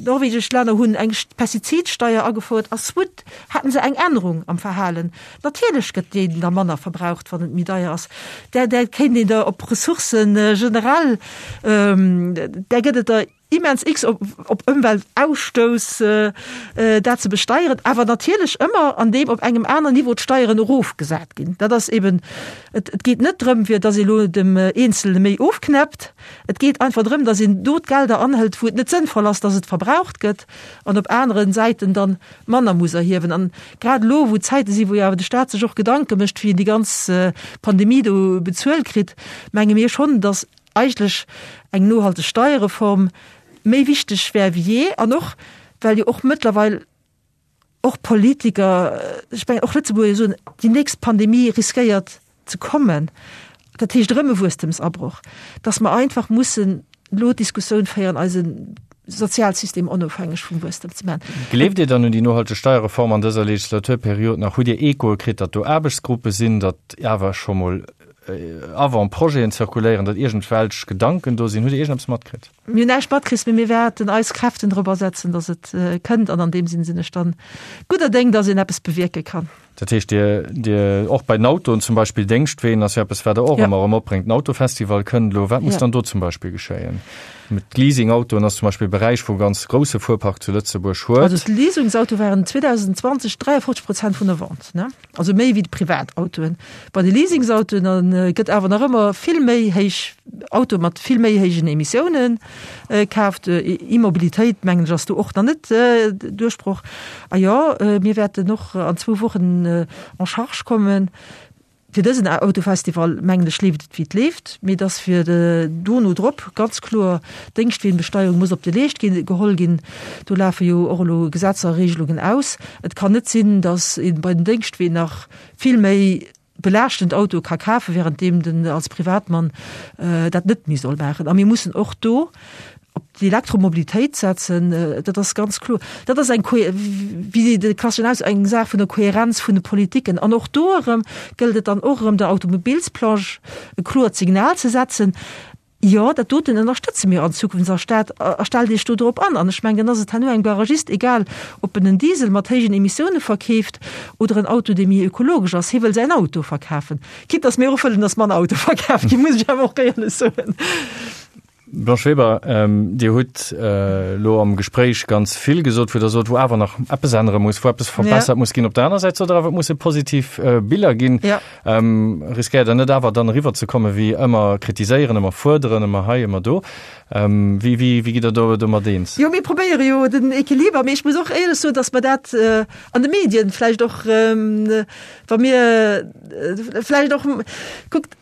norwegesch Länner hunn eng Pestizidsteier agefouert a soit haten se eng Ännerung am Verhalen. Natierlech gëtt deen da manner verbraucht, wann et méi deier ass. Där, där kéint een der op Ressourcen generell, där gëtt et der immens x op, op Ëmweltausstouss, dat ze besteieren, awer natierlech ëmmer an deem op engem aneren Niveau d'Steieren erofgesat ginn. Dat ass eben, et, et geet net drëm, fir datt ee lo dem Eenzelne méi ofknäppt. Et geet einfach drëm, datt een do d'Gelder anhëlt, wou et net sënnvoll ass, datt et verbraucht gëtt, an op anere Säiten dann manner muss erhiewen. An grad elo, wou Zäite sinn, wou jo awer de Staat sech och Gedanke mécht, wéi en déi ganz Pandemie do bezuelt kritt, menge mir schonn, datt eigentlech eng nohalteg Steierreform méi wichteg wär wéi jee. An och, well jo och mëttlerweil och Politiker, ech mengen och Lëtzebuerger soen, déi nächst Pandemie riskéiert ze kommen, dat heescht erëm e Wuesstemsabroch, dass mer einfach mussen elo d'Diskussioun féieren, eise Sozialsystem onofhängeg vum Wuesstem ze maachen.
Gleeft Dir dann un déi nohalteg Steierreform an dëser Legislaturperiod nach? Hutt Dir Echoe kritt, datt do Aarbechtsgruppe sinn, datt awer scho mol Avant-projeten zirkuléieren, datt iergendwelch Gedanken do sinn? Hutt Dir iergendeppes matkritt?
Mir hunn näischt matkritt, mee mir wäerten eis Kräften drop asetzen, datt et kënnt. An an deem Sinn sinn ech dann gudder Déng, datt een eppes bewierke kann.
Dat heescht, Dir, Dir, och bei den Autoen zum Beispill, Déngschtween ass jo eppes, wat Der och ëmmer erëm opbréngt. Den Autofestival kënnt elo. Wat muss dann do zum Beispill geschéien? D'Leasingautoen ass zum Beispill e Beräich, wou e ganz grousse Fuerpark zu Lëtzebuerg huet.
Also d'Leasingsautoe waren 2020 53 Prozent vun der Vente, ne? Also méi wéi d'Privatautoen. Bei de Leasingsautoen gëtt awer nach ëmmer vill méi héich Autoe mat vill méi héijen Emissiounen kaaft. E-Mobilitéit, mengen ech, ass do och nach net Duerchbroch. A jo, mir wäerten och an zwou Wochen en charge kommen. Fir dësen Autofestival, mengen ech, leeft et wéi et leeft, mee dass fir dono drop ganz kloer d'Déngschtweenbesteierung muss op de Leescht ginn, geholl ginn. Do lafe jo och elo Gesetzer a Regelungen aus. Et kann net sinn, dass ee bei den Déngschtween nach vill méi belaaschtend Autoe ka kafen, währenddeem den als Privatmann dat net méi soll maachen. A mir mussen och do op d'Elektromobilitéit setzen, dat ass ganz kloer. Dat ass eng, wéi de klasseschen Aus, eng Saach vun der Kohärenz vun de Politiken. An och do erëm gëllt et dann och erëm der Automobilsbranche e kloert Signal ze setzen, Jo, dat doten ënnerstëtze mir an Zukunft a Stad a stellt Iech do drop an. An ech mengen, dann ass et herno engem Garagist egal, ob en en Diesel mat héijen Emissioune verkeeft oder en Auto, dee méi ökologesch ass. Hie wëll säin Auto verkafen. Quitte dass mir och wëllen, dass manner Autoe verkaf ginn, muss ech awer och éierlech soen.
Blanche Weber, Dir hutt elo am Gespréich ganz vill gesot, wou Der sot, wou awer nach eppes ännere muss, wou eppes verbessert muss ginn. Op der aner Säit sot Der awer, et musse positiv Biller ginn. Riskéiert Der net awer dann eriwwer ze kommen, wéi ëmmer kritiséieren, ëmmer fuerderen, ëmmer hei, ëmmer do? Wéi, wéi, wéi gitt Der do domat eens?
Jo, mir probéiere jo den Equiliber, mee ech muss och éierlech soen, datt mer dat an de Medien vläicht och, wa mir vläicht och, kuckt.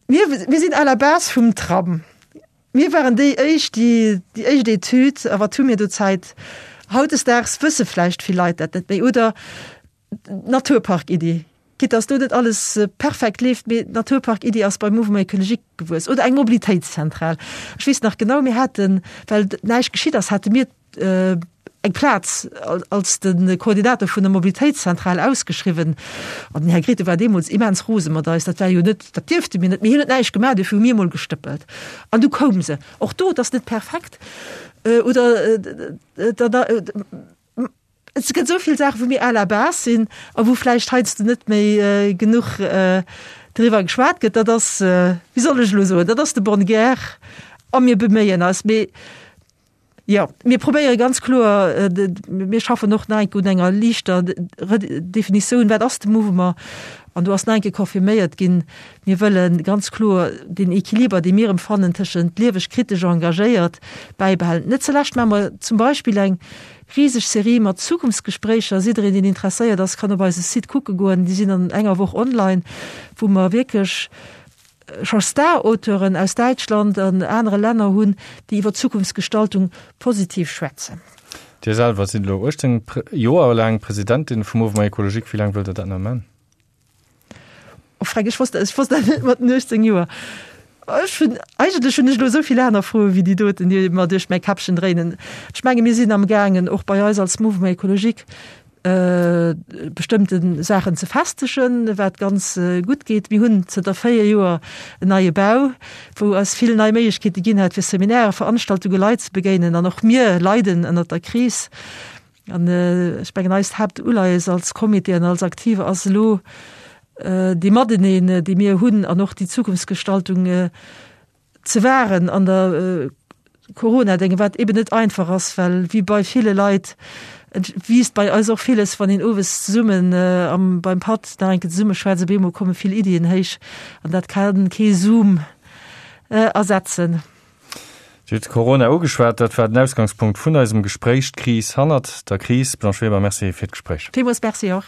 Mir, mir sinn à la base vum Tram. Mir waren déi éischt, déi déi éischt Etüd, a wat hu mir do Zäit? Hautdesdaags wësse vläicht vill Leit dat net méi. Oder d'Naturpark-Iddi, quitte dass do net alles perfekt leeft, mee d'Naturpark-Iddi ass beim Mouvement écologique gewuess. Oder eng Mobilitéitszentral. Ech weess nach genau, mir haten, well näischt geschitt ass, hate mir eng Plaz als de Koordinator vun der Mobilitéitszentral ausgeschriwwen. An den Här Grethen war deemools immens rose mat eis. Dat war jo net, dat dierfte mir net, mee hien huet näischt gemaach, duerfir hu mir emol gestëppelt. An du koum se. Och do, et ass net perfekt. Oder et gëtt esou vill Saachen, wou mir à la base sinn a wou vläicht heiansdo net méi genuch driwwer geschwat gëtt. Dat ass, wéi soll ech elo soen, dat ass de bonne guerre a mir beméien eis. Mee Jo, mir probéiere ganz kloer, mir schaffen och nach eng Kéier un enger liichter Redefinitioun, wat ass de Mouvement? An do ass nach eng Kéier confirméiert ginn, mir wëlle ganz kloer deen Equiliber, dee mir empfannen tëschent lieweg, kritesch, engagéiert, bäibehalen. Net zulescht maache mer zum Beispill eng riseg Serie mat Zukunftsgespréicher. Jiddereen, deen interesséiert ass, kann op eise Site kucke goen, déi sinn an enger Woch online, wou mer wierklech, scho Star-Auteuren aus Däitschland an anere Länner hunn, déi iwwer Zukunftsgestaltung positiv schwätzen.
Dir selwer sidd elo 18 Joer laang Presidentin vum Mouvement Ecologique. Wéi laang wëllt Der dat nach man?
Oh Freck, ech wosst, ech wosst dat net mat den 18 Joer. Ech hunn, eigentlech hunn ech elo esou vill aner Froe wéi déi doten, déi mer duerch mäi Käppchen dréinen. Ech menge mir sinn amgaangen, och bei eis als Mouvement Ecologique, bestëmmte Saachen ze festegen, wat ganz gutt geet. Mir hunn zënter 4 Joer en neie Bau, wou eis vill nei Méiglechkeete ginn hat, fir Seminairen, Veranstaltunge, Leit ze begéinen. An och mir leiden ënnert der Kris. An ech mengen, eist Haaptuleies als Comité an als Aktive ass elo dee Mateneen, dee mir hunn an och déi Zukunftsgestaltung, ze wahren an der Corona-Dénge, wat eben net einfach ass, well wéi bei ville Leit wiisst bei eis och villes, wann een owes zesummen am beim Patt nach eng Kéier zesumme schwätzt, op eemol komme vill Iddien héich an dat kann kee Zoom ersetzen.
Dir hutt Corona ugeschwat, dat war den Ausgangspunkt vun eisem Gespréich, d'Kris hannert der Kris. Blanche Weber, Merci fir d'Gespréich.
Villmools Merci och.